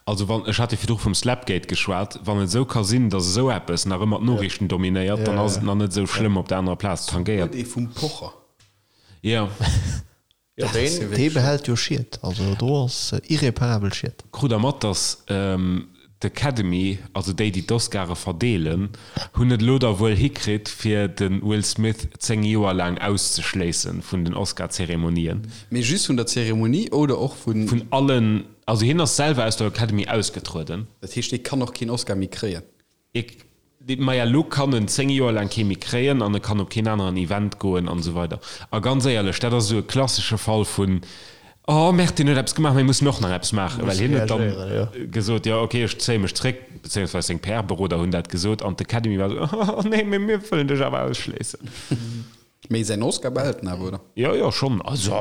Also wann, ech hat jo virdru vum Slapgate geschwat, wann et esou ka sinn, datt esou eppes nach ëmmer d'Noriichten dominéiert, dann ass et nach net esou schlëmm op der anerer Plaz tangéiert. Huet ee vum Pocher. Jo. Jo, deen, dee behält jo Schied. Also do ass irreparabel Schied. Krut der mat, dass d'Academy, also déi, déi d'Oscare verdeelen, hunn et elo da wuel hikritt, fir de Will Smith 10 Joer laang auszeschléisse vun den Oscar-Zeremonien. Mee just vun der Zeremonie oder och vun. Vun allen. Also hien ass selwer aus der Academy ausgetrueden. Dat heescht, dee kann och keen Oscar méi kréien? Maja, lo kann en 10 Joer laang kee méi kréien an e kann op keen aneren Event goen an esou weider. A ganz éierlech, dat ass esou e klassesche Fall vun, Oh merde, deen huet eppes gemaach, mir mussen och nach eppes maachen. Well hien huet dann gesot, jo ok, ech zéie mech zréck, bezéiungsweis seng PR-Beroder hunn dat gesot an d'Academy war esou, Oh nee, mee mir wëllen dech awer ausschléissen. Mee säin Oscar behält en awer, oder? Jo, jo, schonn. Also.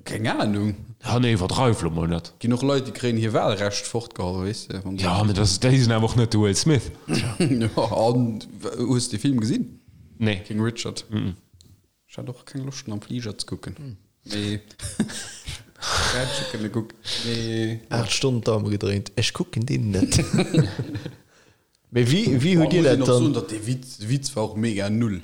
Keng Ahnung. Ja, nee, iwwerdreiw lo mol net. Ginn och Leit, déi kréien hir Wahlrecht fortgeholl, weess de. Wann se. Ja, mee das, déi sinn awer och net de Will Smith. Jo, an hues de Film gesinn? Nee. King Richard? Ech hat och keng Loscht en am Fliger ze kucken. Mee ech hätt scho kënne kucken. Mee. 8 Stonnen d'Daume gedréint, ech kucken deen net. Mee wéi, wéi hutt Dir dat dann? Muss een och soen, dann? datt dee Witz, de Witz war och mega null.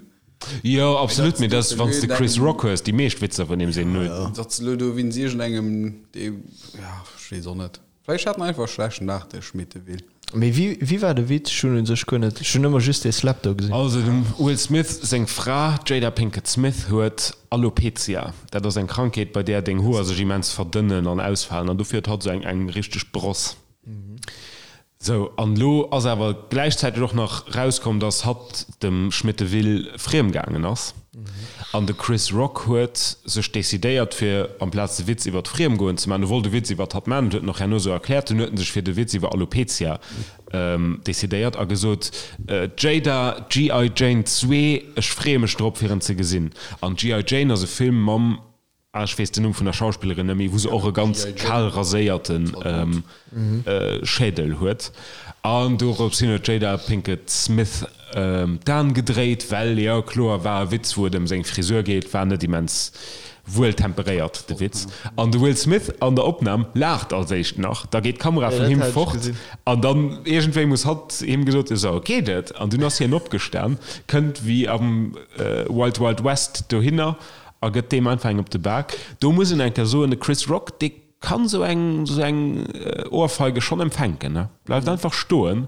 Jo, absolut, mee dat, wann s de Chris Rock hues, déi meescht Witzer vun him sinn null. Datt se elo do wéinst iergendengem, dee, ja, ech weess och net. Vläicht hat en einfach e schlechten Dag, de Schmitteville. Mee wéi, wéi war de Witz? Ech hunn u sech guer net, ech hunn ëmmer just dee Slap do gesinn. Also dem Will Smith seng Fra, d'Jada Pinkett Smith, huet Alopecia. Dat ass eng Krankheet, bei där deng Hoer sech immens verdënnen an ausfalen an dofir huet hatt esou eng, eng richteg Bross. Sou, an elo ass awer gläichzäiteg och nach rauskomm, dass hatt dem Schmitteville friem gaangen ass. An de Chris Rock huet sech decidéiert, fir amplaz de Witz iwwer d'Friemgoen ze maachen, e wollt e Witz iwwer hatt maachen, dat huet en och herno sou erkläert, dunn huet en sech fir de Witz iwwer Alopecia decidéiert a gesot, Jada, GI. Jane 2, ech freeë mech drop, fir en ze gesinn. An GI. Jane ass e Film mam Ah, ech weess den Numm vun der Schauspillerin net méi, wou se och e ganz kal raséierte Schädel huet. An dorops hin huet d'Jada Pinkett Smith d'Aen gedréit, well, jo kloer, war e Witz, wou et ëm seng Frisur geet, war net immens wuel temperéiert, de Witz. An de Will Smith an der Opnam laacht als éischt nach, da geet d'Kamera vun him fort an dann iergendwéi muss hatt him gesot hunn, sou, geet et? An dunn ass hien opgestan, kënnt wéi am Wild Wild West dohinner A gëtt deem einfach eng op de Bak. Do muss een eng Kéier soen, de Chris Rock, dee kann esou eng, esou eng Ohrfeige schonn empfänken, ne? Bleift einfach stoen.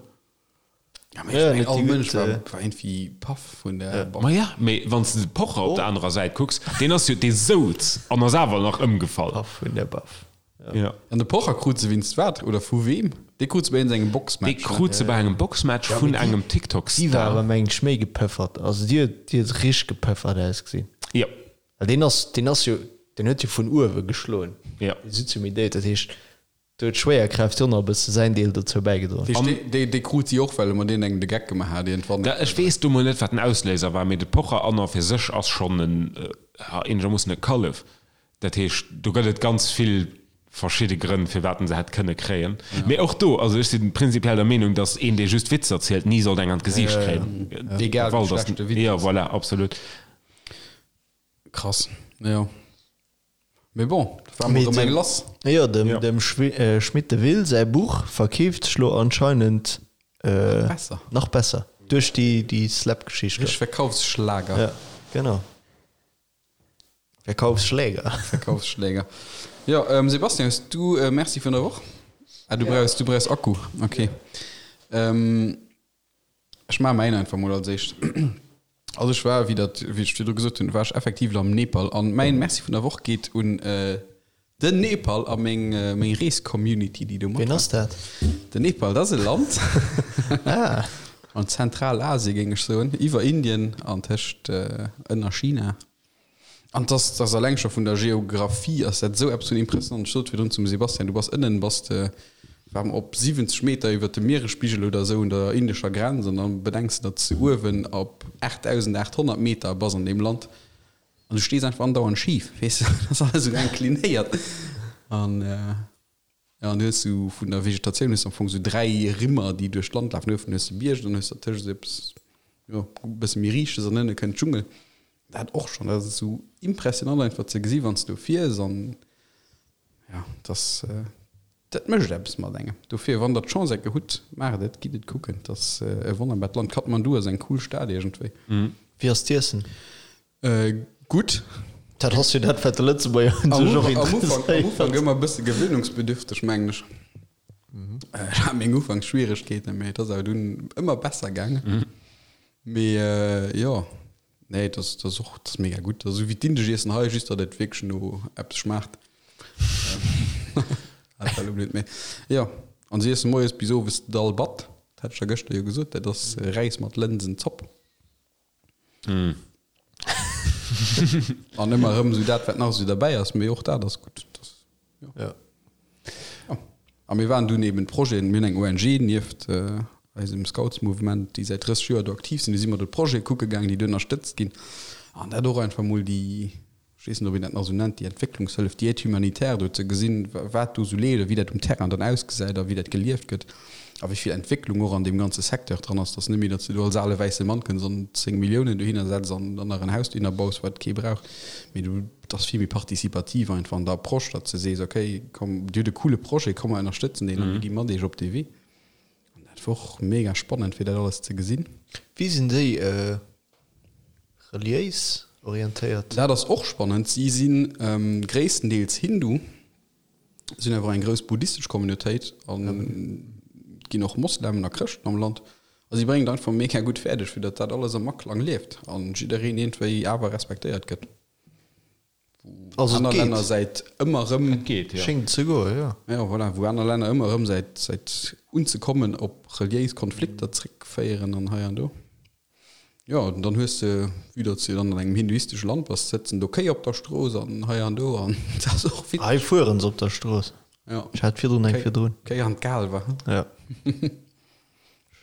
Ja, mee ech mengen, all Mënsch war, war iergendwéi paff vun der Baff. Ma ja, mee wann s de de Pocher op der anerer Säit kucks, deen ass jo, dee souz an ass awer nach ëmgefall. Paff vun der Baff. Ja. An de Pocher krut se winst wat oder vu weem? Dee krut se bei iergendengem Boxmatch, Dee krut se bei engem Boxmatch vun engem Déi war TikTok-Star. awer mengen ech méi gepëffert. Also déi huet, déi huet richteg gepëffert ausgesinn. Jo. Well deen ass, deen ass jo, deen huet jo vun uewe geschloen. Jo. Dee Suzumidé, dat heescht, do huet d'Schwéierkraaft jo nach e bësse säin Deel dozou bäigedroen. Dat heescht, dee, dee krut si och, well e mat deenen engem de Geck gemaach hat iergendwann. Da, ech weess do mol net, wat den Ausléiser war, mee de Pocher an a fir sech ass schonn en, eenegermoossen e Kallef. Dat heescht, do gëtt et ganz vill verschidde Grënn, firwat en se hätt kënne kréien. Mee och do, also ech si prinzipiell der Meenung, datt een, dee just Witzer zielt, ni sollt eng an d'Gesiicht kréien. Egal wéi schlecht de Witz ass. Jo, voilà, absolut. Krass, jo. Mee bon, da war mol erëm eng lass. Jo, dem Schmit de Will säi Buch verkeeft sech lo anscheinend nach besser duerch déi Slap-Geschicht do. Richteg Verkaufsschlager. Jo, genau. Verkaufsschläger. Verkaufsschläger. Jo, ähm, Sebastian, hues du e Merci vun der Woch? Ah, du brauchs, du brauchs Akku. Okay. Ähm, ech maache mäin einfach mol als éischt. Also ech war, wéi dat, wéi ech virdru gesot hunn, war ech effektiv am Nepal an mäin Merci vun der Woch geet un äh, den Nepal a meng, meng Rees-Community, déi do mat Ween ass dat? Den Nepal, dat ass e Land. Ah. An Zentralasien, géing ech soen, iwwer Indien an tëscht ënner China. An dass dass alleng scho vun der Geographie ass dat esou eppes vun impressionant. Ech sot virdrun zum Sebastian, du bass ënnen, bass de war op 70 Meter iwwer dem Mieresspigel oder esou un der indescher Grenz an dann bedenks de, datt s de uewen op 8.800 Meter bass an deem Land an du stees einfach andauernd schif, weess de, dat ass alles esou inclinéiert an. Ja, an du hues sou vun der Vegetatioun hues du am Fong sou 3 Rimmer, déi duerch d'Land lafen. Uewen hues de Bierg, dann hues de dertëscht esou eppes, jo, e bësse méi Riichtes an ënne kënnt Dschungel. Dat och schonn, dat ass esou impressionant einfach ze gesi wann s du do fiers an ja, dass dat mécht eppes mat engem. Dofir, wann der d'Chance enke hutt, maacht et, gitt et kucken. Et ass e wonnerbart Land. Kathmandu ass eng cool Stad iergendwéi. Wéi ass d'Iessen? Gutt. Dat ass jo dat, wat de Lëtzebuerger un sech och interesséiert. Am Ufank ëmmer e bësse gewöhnungsbedürfteg, mengen ech. Ech hat meng Ufanksschwieregkeeten, mee et ass awer dunn ëmmer besser gaangen. Mee jo, nee, et ass, et ass och, et ass mega gutt. Esou wéi d'indesch Iessen hei, just datt et wierklech no eppes schmaacht. Dat war elo blöd, mee jo. An si iessen moies bis owes Dal Bhat, dat hat ech der gëschter jo gesot, dat ass Räis mat Lënsenzopp. Mm. An ëmmer erëm esou dat, wat nach esou derbäi ass, mee och dat ass gutt. Das, ja. Ja. Ja. A mir waren dunn eben Projeten, mir hunn eng ONG nieft äh, eisem Scoutsmouvement, déi säit 30 Joer do aktiv sinn, du si mer do d'Projete kucke gaangen, déi do ënnerstëtzt ginn. An dat och einfach mol déi ech weess net, ob een dat nach esou nennt, déi Entwécklungshëllef, déi Aide humanitaire do ze gesinn, wat do esou leeft a wéi dat um Terrain dann ausgesäit a wéi dat gelieft gëtt a wéi vill Entwécklung och an deem ganze Secteur dran ass, dass net méi, datt s de do als ale wäisse Mann kënns an 10 Milliounen dohinner setz an dann nach en Haus dohinner baus, wat kee brauch, mee du, et ass vill méi participativ einfach an der Approche, datt s de sees, okay, komm, dir hutt e coole Projet, komm mer ënnerstëtzen deen a mir gi mat iech op dee Wee. An dat war och mega spannend, fir dat alles ze gesinn. Wéi sinn déi reliéis orientéiert? Dat ass och spannend. Si si gréisstendeels Hindu, si hunn awer och eng grouss buddhistesch Communautéit an et ginn och Moslemen a Chrëschten am Land. A si bréngen et einfach mega gutt fäerdeg, fir datt dat alles am Aklang lieft an jiddereen iergendwéi awer respektéiert gëtt. Wou Also et aner geet. Länner säit ëmmer erëm. Et geet, jo. Schéngt ze goen, jo. Jo, voilà, wou aner Länner ëmmer erëm säit, säit unzekommen op reliéis Konflikter zréckféieren an hei an do. Jo, an dann hues de, vue datt s de dann an engem hinduistesche Land bass, sëtzen do Kéi op der Strooss an hei an do an dat ass och witzeg. Hei fueren se op der Strooss. Jo. Ech hat virdrun eng virdrun. Kéi an d'Kaalwer. Jo.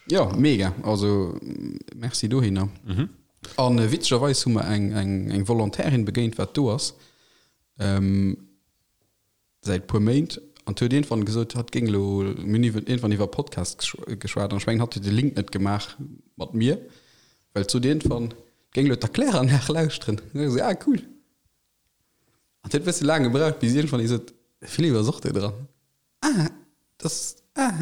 Jo, mega, also merci dohinner. An witzegerweis hu mer eng eng Volontairin begéint, wat do ass säit puer Méint, an huet iergendwann gesot, hatt géing elo, mir hunn iwwer iergendwann iwwer Podcast geschwat, an ech mengen, hatt huet de Link net gemaach mat mir, well et sot iergendwann, géing elo d'Erkläranlag lauschteren. An ech esou, ah cool. An huet e bësse laang gebraucht, bis iergendwann ee sot, de Philippe ass och do dran. Ah, das, ah.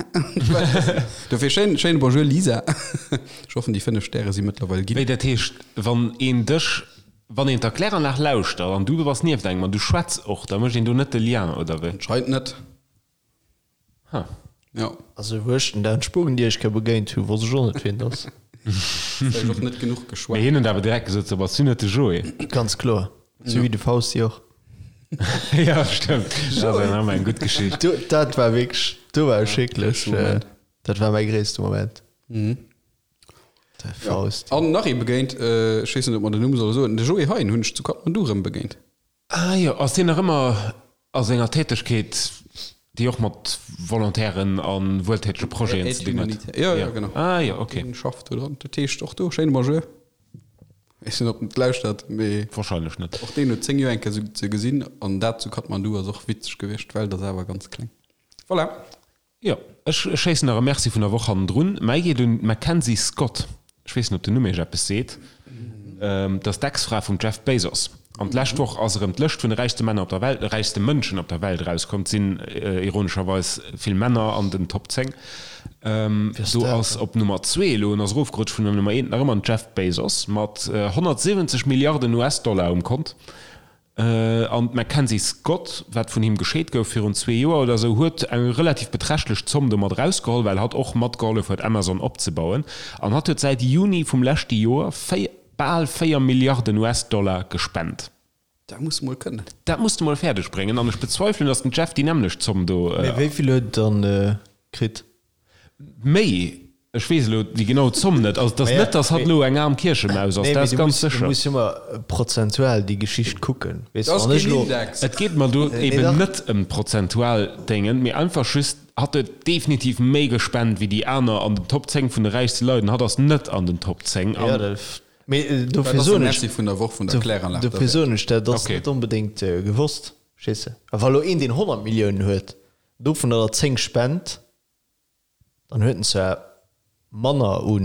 Dofir schéin, schéine Bonjour Lisa. Ech hoffen déi 5 Stäre si mëttlerweil ginn. Wéi, dat heescht, wann een dech, wann een d'Erkläranlag lauschtert an du bass nieft engem an du schwätz och, da mécht een do net de Lien, oder wéi? Anscheinend net. Ha. Jo. Also wou ech den Dan Spugendierchke begéint hu wosst ech och net wien et ass. Vläicht och net genuch Mee geschwat. hien huet awer direkt gesot, so bass du net de Joé? Ganz kloer. Sou wéi de Fausti och. Jo, stëmmt. Dat ass eng eng gutt Geschicht. Do, dat war wierklech, do war ech wierklech, dat war mäi gréisste Moment. De Faust. An nach ee begéint, ech weess net, ob mer den Numm solle soen, de Joé Hein hunn ech zu Kathmandu erëm begéint. Ah jo, ass deen nach ëmmer a senger Tätegkeet, déi och mat Volontairen a wueltätege Projeten ze dinn huet? Jo, jo, genau. Ah jo, ok. Deen schafft do dran. Dat heescht och do, schéine Bonjour. Ech weess net, ob en et lauschtert, mee. Wahrscheinlech net. Och deen huet 10 Joer eng Kéier ze gesinn an dat zu Kathmandu ass och witzeg gewiescht. D'Welt ass awer ganz kleng. Voilà. Jo, ech schéissen nach e Merci vun der Woch hannendrun. Mäi geet un d'Mackenzie Scott. Ech weess net, ob den Numm Iech eppes seet. Dat ass d'Ex-Fra vum Jeff Bezos. An d'lescht Woch ass erëm d'Lëscht vun de räichste Männer op der Welt, räichste Mënschen op der Welt erauskomm. Et sinn ironescherweis vill Männer an den Top 10. Do ass op Nummer zwee elo, en ass erofgerutscht vun der Nummer eent, nach ëmmer den Jeff Bezos mat 170 Milliarden US-Dollar um Kont. An d'Mackenzie Scott, wat vun him gescheet gouf virun zwee Joer oder esou, huet eng relativ beträchtlech Zomm domat erausgeholl, well hatt och matgehollef huet Amazon opzebauen. An hatt huet säit Juni vum leschte Joer bal 4 Milliarden US-Dollar gespent. Dat muss de mol kënnen. Dat muss de mol fäerdeg bréngen. An ech bezweifelen, datt den Jeff déi nämmlecht Zomm do. Mee wéi vill huet en dann kritt? Méi, ech weess elo déi genau Zomm net. Also et ass net, datt hatt elo eng aarm Kierchemaus ass, dat ass ganz sécher. Du muss jo ëmmer prozentual déi Geschicht kucken, weess de. Wann ech elo. Et geet mer do eben net ëm d'prozentual Déngen, mee einfach just, hatt huet definitiv méi gespent wéi déi aner an den Top 10 vun de räichste Leit an hatt ass net an den Top 10. Jo, dat, mee dofir soen ech. Merci vun der Woch vun der Kläranlag. Dofir soen ech, dat ass net onbedéngt gewosst, verstees de. A wa elo een, deen 100 Milliounen huet, dovunner der 10 spent, Dann huet en zwar manner u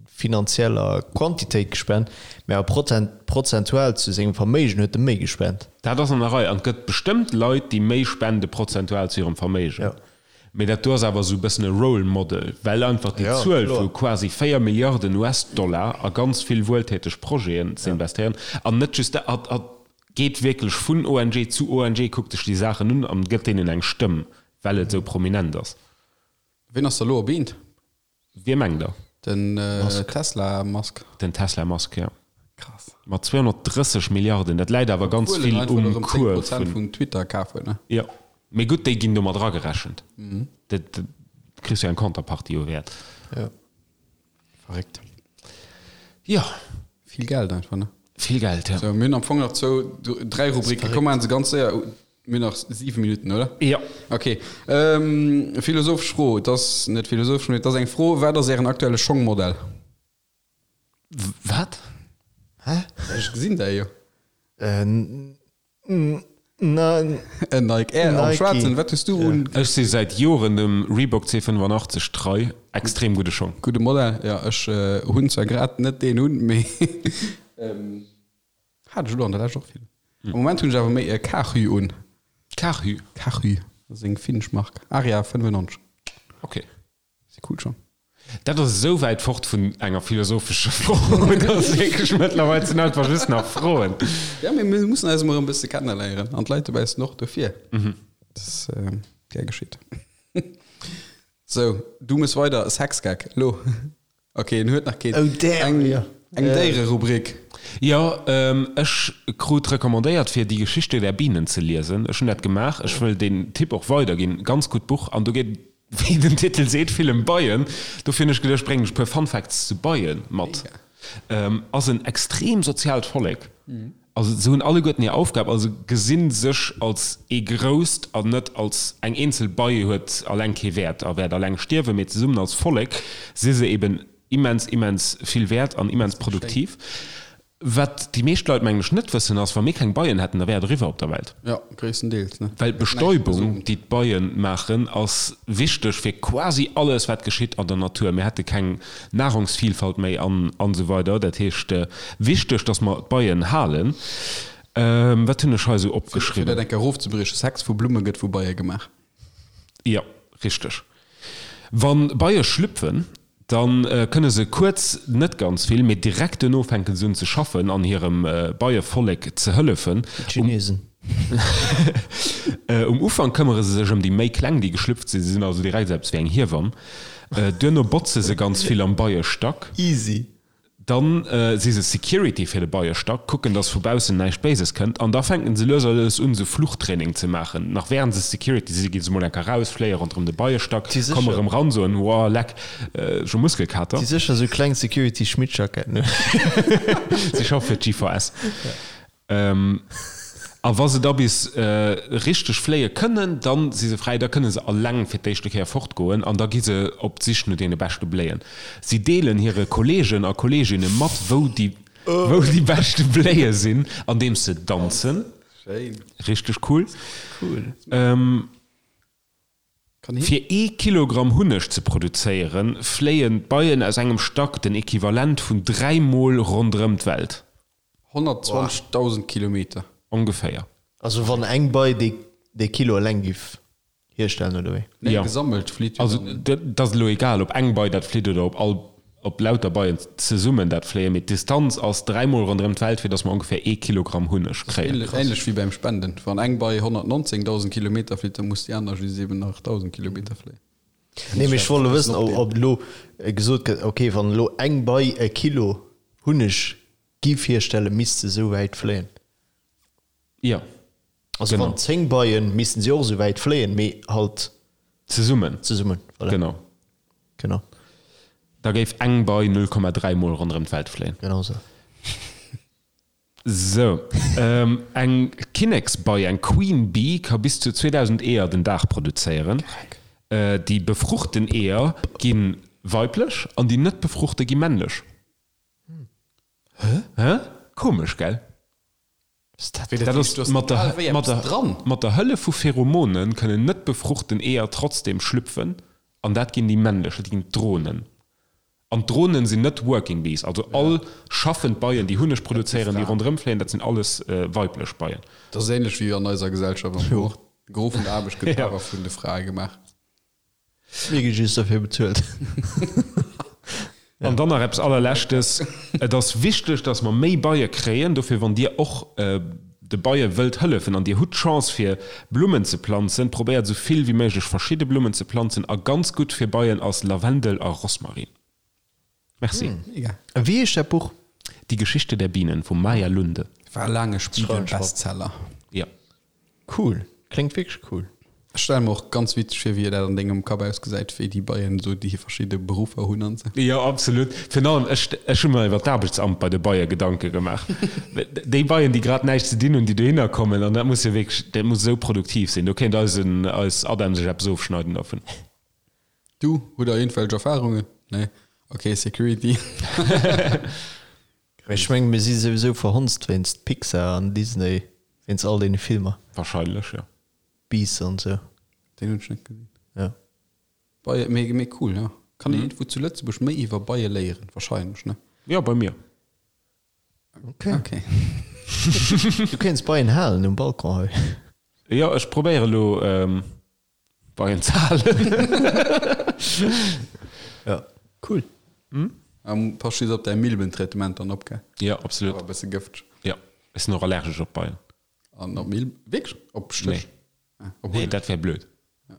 finanzieller Quantitéit gespent, mä awer prozentual zu sengem Verméigen huet e méi gespent. Dat ass an der Rei. An et gëtt bestëmmt Leit, déi méi spende prozentual zu hirem Verméigen. Mä dat do ass awer esou e bëssen e Role Model, well einfach déi Zuel vu quasi 4 Milliarden US-Dollar a ganz vill wueltäteg Projeten ze investéieren an net just dat, hatt geet wierklech vun ONG zu ONG, kuckt sech déi Saachen un an gëtt deenen eng Stëmm. Well et sou prominent ass. Ween ass da lo op eent? Wie mengt der? Den Tesla Musk. Den Tesla Musk, jo. Krass. Mat 230 Milliarden. Dat läit awer ganz Obwuel en vill einfach um erëm Cours 10% vun. vun Twitter kaf huet, ne? Jo. Mee gutt, déi ginn do mat eragerechent. Dat kriss jo eng Contrepartie u Wäert. Jo. Verréckt. Jo. Vill Geld einfach, ne? Vill Geld, jo. Sou, mir hunn am Fong nach zwou, dräi Rubriken. Komm, maachen se ganz séier. Mir hunn nach siwe Minutten, oder? Jo. Okay. Ähm, philosophesch Fro, et ass net philosophesch, mee et ass eng Fro, Wat ass Ären aktuelle Schongmodell? Wat? Hä? Ech gesinn däi jo. Äh, na. En Nike Air am Nike. Schwaarzen. Wat hues du un? Ech si säit Joren dem Reebok C85 trei. Extrem gudde Schong. Gudde Modell, jo. Ech hunn zwar grad net deen un, mee hat ech elo an der Lescht och vill. Am Moment hunn ech awer méi e Karhu un. Karhu? Karhu, dat ass eng finnesch Mark. Aria 95. Ok. Si cool schon. Dat ass esou wäit fort vun enger philosophescher Fro, dass wierklech mëttlerweil sinn einfach just nach Froen. Ja, mee mir mussen eis emol erëm e bësse kenneléieren an d'Leit dobaussen och dofir. Dat ass gär geschitt. Sou, du muss weider, Sexgag, elo. Ok, en huet nach keen. Oh damn, Eng, jo. eng Déiererubrik. Jo, ech krut recommandéiert fir Die Geschichte der Bienen ze liesen. Ech hunn dat gemaach. Ech wëll deen Tipp och weiderginn. Ganz gutt Buch an do geet et, wéi den Titel seet, vill ëm Beien. Dofir hunn ech geduecht, bréngen ech e puer Fun Facts zu Beie mat. Ass en extrem soziaalt Vollek. Also se hunn alleguerten hir Aufgab, also gesi sech als ee grousst an net als eng eenzel Bei huet alleng kee Wäert a wäert alleng stierwen, mee zesummen als Vollek si se eben immens, immens vill wäert an immens produktiv. Wat déi meescht Leit mengen ech net wëssen ass, wa mir keng Beien hätten, da wär et eriwwer op der Welt. Jo, gréisstendeels, ne? Well d'Bestäubung, déi d'Beie maachen, ass wichteg fir quasi alles wat geschitt an der Natur. Mir hätte keng Nahrungsvielfalt méi an an esou weider. Dat heescht, wichteg, dass mer d'Beien halen. Wat hunn ech hei esou Fir opgeschriwwen? dat eng Kéier erofzebriechen, Sex vu Blumme gëtt vu Beie gemaach. Jo, richteg. Wa Beie schlüpfen, da kënne se kuerz net ganz vill, mee direkt duerno fänke se un ze schaffen an hirem Beievollek ze hëllefen. D'Chinesen. Um Ufank këmmere se sech ëm déi méi kleng, déi geschlüpft sinn. Se sinn also direkt esou eppes wéi eng Hiewamm. Duerno botze se ganz vill am Beiestack. Easy. Dann si se Security fir de Beiestack, kucken, dass vu baussen näischt Béises kënnt an da fänken se lues a lues un, sou Fluchtraining ze maachen. Nach wärend se Security si, gi se mol eng Kéier raus, fléie ronderëm de Beiestack, komme rëm ran, soen, Woah, leck, ech hu Muskelkater. Si sécher sou kleng Security-Schmittjacketten un. Si schaffe fir d'GVS. A wa se da bis richteg fléie kënnen, da si se fräi, da kënne se alleng fir d'éischte Kéier fortgoen an da gi se op d'Sich no deene beschte Bléien. Si deelen hire Kolleegen a Kolleeginne mat, wou déi wou déi beschte Bléie sinn, andeems se danzen. Richteg cool. Fir ee Kilogramm Hunneg ze produzéieren, fléien d'Beien aus engem Stack den Equivalent vun 3 Mol ronderëm d'Welt. 120.000 Kilometer. Ongeféier. Also wann eng Bei dee Kilo eleng giff hierstellen, oder wéi? Nee, gesammelt flitt jo Also dann. dat ass elo egal, ob eng Bei dat flitt oder ob all, ob lauter Beien zesummen dat fléien, mee d'Distanz ass dräimol ronderëm d'Welt, fir datt mer ongeféier ee Kilogramm Hunneg kréien. Ähnlech wéi beim Spenden, wann eng Bei 119.000 Kilometer flitt, da muss déi aner just eben nach 1.000 Kilometer fléien. Nee, mee ech wollt elo wëssen, ob elo gesot gëtt, ok, wann elo eng Bei e Kilo Hunneg giff hierstellen, misst se esou wäit fléien. Jo, Also genau. wann 10 Beien, missten si och esou wäit fléien, mee halt Zesummen. zesummen, voilà. Genau. Genau. Da géif eng Bei 0,3 mol ronderëm d'Welt fléien. Genau esou. Sou, eng Kinneksbei, eng Queen Bee, ka bis zu 2.000 Eeër den Dag produzéieren. Déi befruchten Eeër gi weiblech an déi net befruchte gi männlech. Hä? Komesch, gell? Dat ass mat der, mat der, mat der Hëllef vu Pheromone kënnen net befruchten Eeër trotzdem schlüpfen an dat ginn déi männlech, dat ginn d'Dronen. An d'Dronen sinn net Working Bees, also all schaffend Beien, déi Hunneg produzéieren, déi ronderëm fléien, dat sinn alles weiblech Beien. Dat ass ähnlech wéi an eiser Gesellschaft am Fong och. De Gros vun der Aarbecht gëtt awer vun de Frae gemaach. Mir gi just derfir bezuelt. An dann nach eppes allerleschtes, Et ass wichteg, dass mer méi Beie kréien. Dofir, wann Dir och de Beie wëllt hëllefen an Dir hutt d'Chance fir Blummen ze planzen, probéiert esou vill wéi méiglech verschidde Blummen ze planzen. A ganz gutt fir Beien ass Lavendel a Rosmarin. Merci. Mega. Wéi heescht dat Buch? Die Geschichte der Bienen vum Maja Lunde. War laang e Spiegel-Bestseller. Jo. Cool. Kléngt wierklech cool. Ech stelle mer och ganz witzeg vir, wéi dat an dengem Kapp ausgesäit, wéi déi Beien esou déi verschidde Beruffer hunn an esou. Jo, absolut. Virun allem, ech, ech hu mer iwwer d'Aarbechtsamt bei de Beie Gedanke gemaach. Déi Beien, déi grad näischt ze dinn hunn, déi dohinner kommen, an dat muss jo wierklech, dat muss esou produktiv sinn. Do kéint eisen, eis Adam sech eppes ofschneiden dovun. Du, hutt der iergendwelch Erfahrungen? Nee? Ok, Security. Ech mengen, mir si souwisou verhonzt wéinst Pixar an Disney, wéinst all deene Filmer. Wahrscheinlech, jo. Beasts an sou. Deen hunn ech net gesinn. Ja. Beie, mee, mee cool, ja. Kann een iergendwou zu Lëtzebuerg méi iwwer Beie léieren? Wahrscheinlech, ne? Jo, bei mir. Okay. Okay. Du kéints Beien halen um Balcon hei. Jo, ech probéiere elo Beien ze halen. Ja, cool. Pass just op däi Milbentraitement dann op, gell? Jo, absolut. Awer e bësse gëfteg. Jo, ech sinn och allergesch op Beien. An op Milben? Wierklech? Op Stéch? Nee. Ah, nee, dat wär blöd. Ja.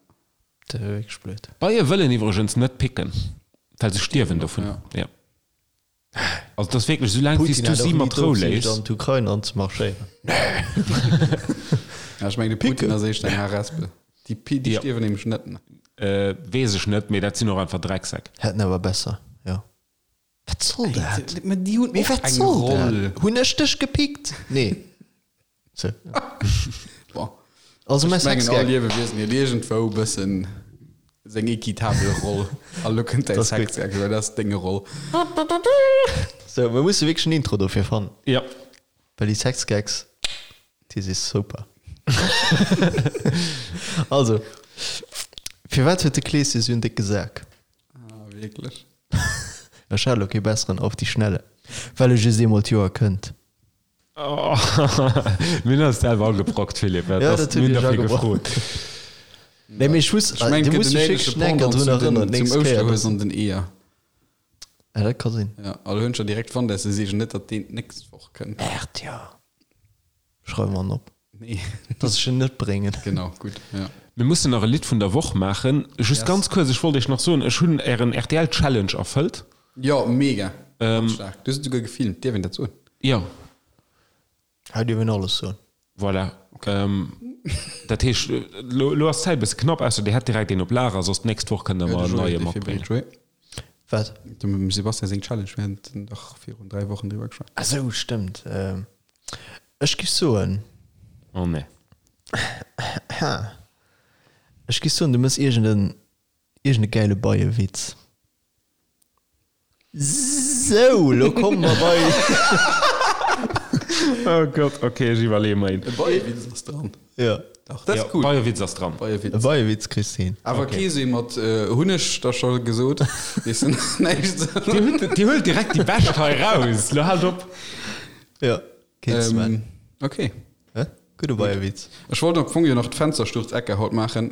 Dat wär wierklech blöd. Beie wëllen iwwregens net picken, well se stierwen dovun. Ja. Ja. Also dat ass wierklech, soulaang wéi s du si mat Rou léiss. An d'Ukrain anzemarschéieren. Ja, ech mengen de Putin ass éischter eng Harespel. Déi, déi stierwen nämlech net. Weess ech net, mee dat sinn och einfach Drecksäck. Hätten awer besser, jo. Wat soll dat? Mä déi hunn Mee och wat eng soll dat? Roll. Hunn ech dech gepickt? Nee. Sou. Bon. Also mäi Ech mengen all Sexgag. Liewewiesen huet iergendwou e bëssen seng equitabel Roll. A lo kënnt däi Dat ass gutt. Sexgag, well dat ass deng Roll. Sou, mir musse wierklech en Intro dofir fannen. Jo. Well déi Sexgags, déi si super. Also, firwat huet de Kleeschen esou en décke Sak? Ah, wierklech? Ech hat elo kee besseren auf die Schnelle. Well e just eemol d'Joer kënnt. Mir hunn eis selwer agebrockt, Philippe. Ja, dat hutt Mir Iech hunn derfir agebrockt. gefrot. Nee, mee ech wusst, Ech mengen, du et gëtt muss en dech ähnleche wierklech enker Pendant drun zu den, erënneren, zum d'nächst Kéier. Ouschterhues an den Eeër. Ja, dat ka sinn. Ja, a lo hunn ech der direkt fonnt, dass se seegen net, datt deen d'nächst Woch kënnt. Merde, jo. Schreiwe mer en op. Nee. Dass ech en net bréngen. Genau, gutt, ja. Mir mussen nach e Lidd vun der Woch maachen. Just Yes. ganz kuerz, ech wollt iech nach soen, ech hunn ären RTL-Challenge erfëllt. Jo, mega. Ganz staark. Du hues et souguer gefilmt. Dierf een dat soen? Jo. Hei dierf een alles soen. Voilà. Dat heescht, lo, lo ass d'Zäit e bësse knapp, ausser Dir hätt direkt een op Lager, soss d'nächst Woch kënnt Der mer en neie matbréngen. Wat? Dem Sebastian seng Challenge, mir haten dach virun 3 Wochen driwwer geschwat. Ah sou, stëmmt. Ech giff soen. Oh nee. Ech giff soen, du mëss iergend en, iergend e gäile Beiewitz. Sou, lo komme mer bei. Oh Gott, ok, ech iwwerleeë mer een. E Beiewitz ass dran. Jo. Dach, dat ass cool. Beiewitz ass dran. Beiewitz. E Beiewitz kriss de hin. Awer kee sou ee mat hunn ech der scho gesot, weess de, näischt. Dir hutt, Dir huelt direkt déi bescht hei raus. Lo haalt op. Jo, keen Sven. Ok. Hä? Gudde Beiewitz. Ech wollt am Fong jo nach d'Fenstersturzecke haut maachen.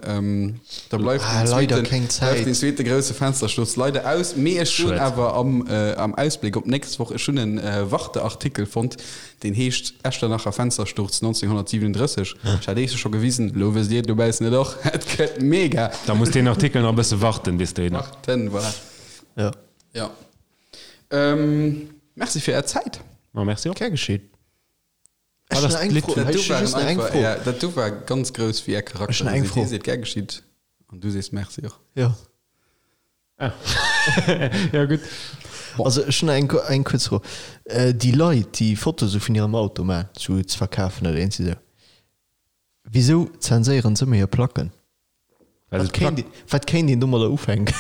Da bleift Ah, den leider zweeten, keng Zäit. bleift den zweete grousse Fenstersturz leider aus. Mee ech soen Schued. awer am, am Ausbléck op d'nächst Woch, ech hunn en Warte-Artikel fonnt, deen heescht Echternacher Fenstersturz 1937. Ech hat iech scho gewisen, elo wësst dir et dobaussen et och. Et gëtt mega. Da muss deen Artikel nach e bësse warten, bis deen. Warten, voilà. Ja. Ja. Merci fir är Zäit. Ma merci och. Gär geschieet. Wat ass d'Lidd vun. Dat do waren einfach, ja, dat do war ganz grouss wéi är Charakter. Ech hunn eng Fro. Hie seet gär geschitt an du sees Merci och. Jo. Ah. Ja, gutt. Also ech hunn eng, eng kuerz Fro. Déi Leit, déi Fotoe sou vun hirem Auto maachen, sou ze verkafen oder iergendwéi sou, wisou zenséieren se ëmmer hir Placken? Well Wat kéint, wat kéint een domadder ufänken?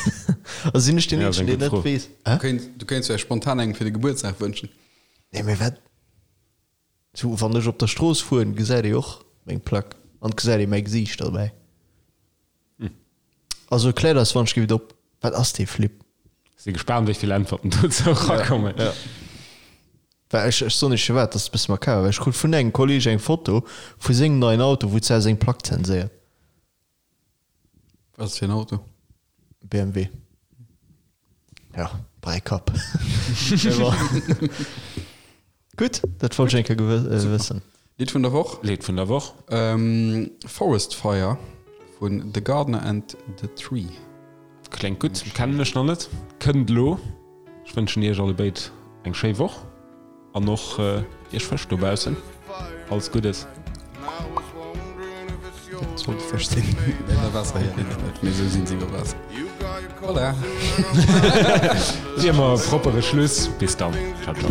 Also sinn ech deen Ja, ass Eenzegen, eng deen gutt net Fro. weess. Du Hä? kéints, du kéints vläicht spontan engem fir de Gebuertsdag wënschen. Nee, mee wat? Sou, wann ech op der Strooss fueren, gesäit ee och meng Plack an et gesäit ee mäi Gesiicht derbäi. Also kläert eis wann ech giff et op, wat ass dee Flip? Si gespaant wéi vill Äntwerten dozou erakommen. Ja. Well ech, ech soen iech firwat, dat ass e bësse makaber, well ech krut vun engem Kolleg eng Foto vu sengem neien Auto, wou d'Sau seng Plack zenséiert. Wat ass fir en Auto? BMW. Ja, Bräikapp. Mee bon. Gutt, dat wollt ech eng Kéier gewë wëssen. Lidd vun der Woch? Lidd vun der Woch? Forest Fire vun The Gardener and the Tree. Kléngt gutt, kennen ech nach net. Kënnt elo. Ech wënschen iech allebéid eng schéi Woch. An och iech Fësch dobaussen alles Guddes. Dat sollte Fësch sinn. Ënner Waasser, jo, net, mee esou sinn se iwwer Waasser. Voilà. Wéi ëmmer e proppere Schluss. Bis dann. Ciao, ciao.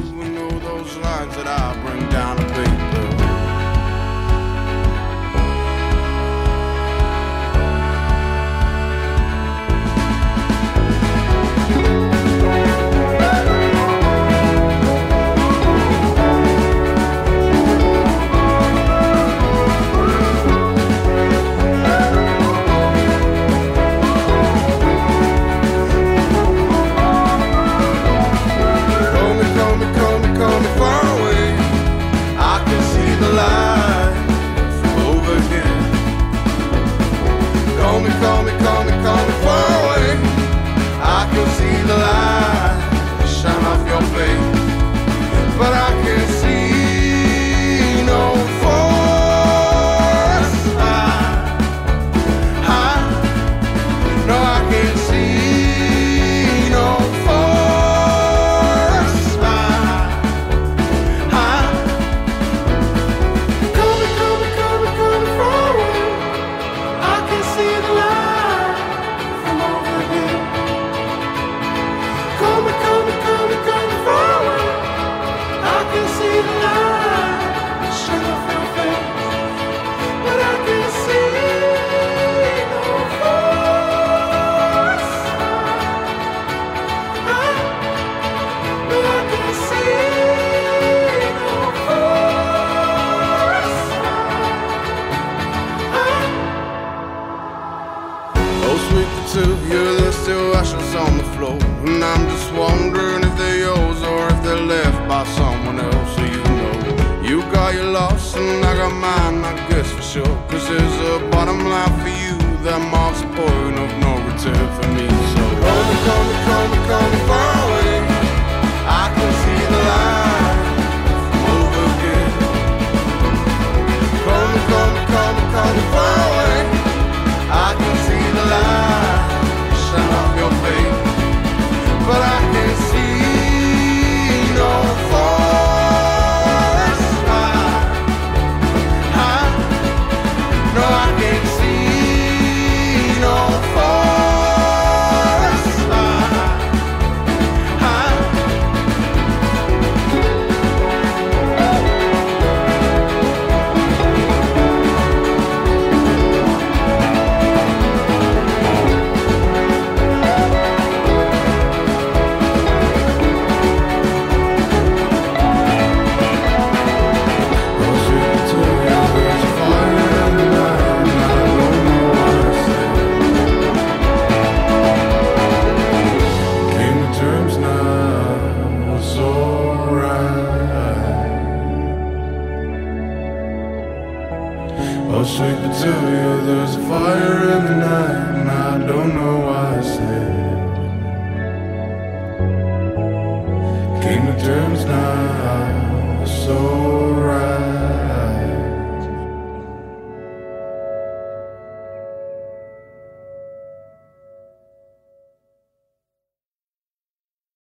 sleep until you. There's a fire in the night.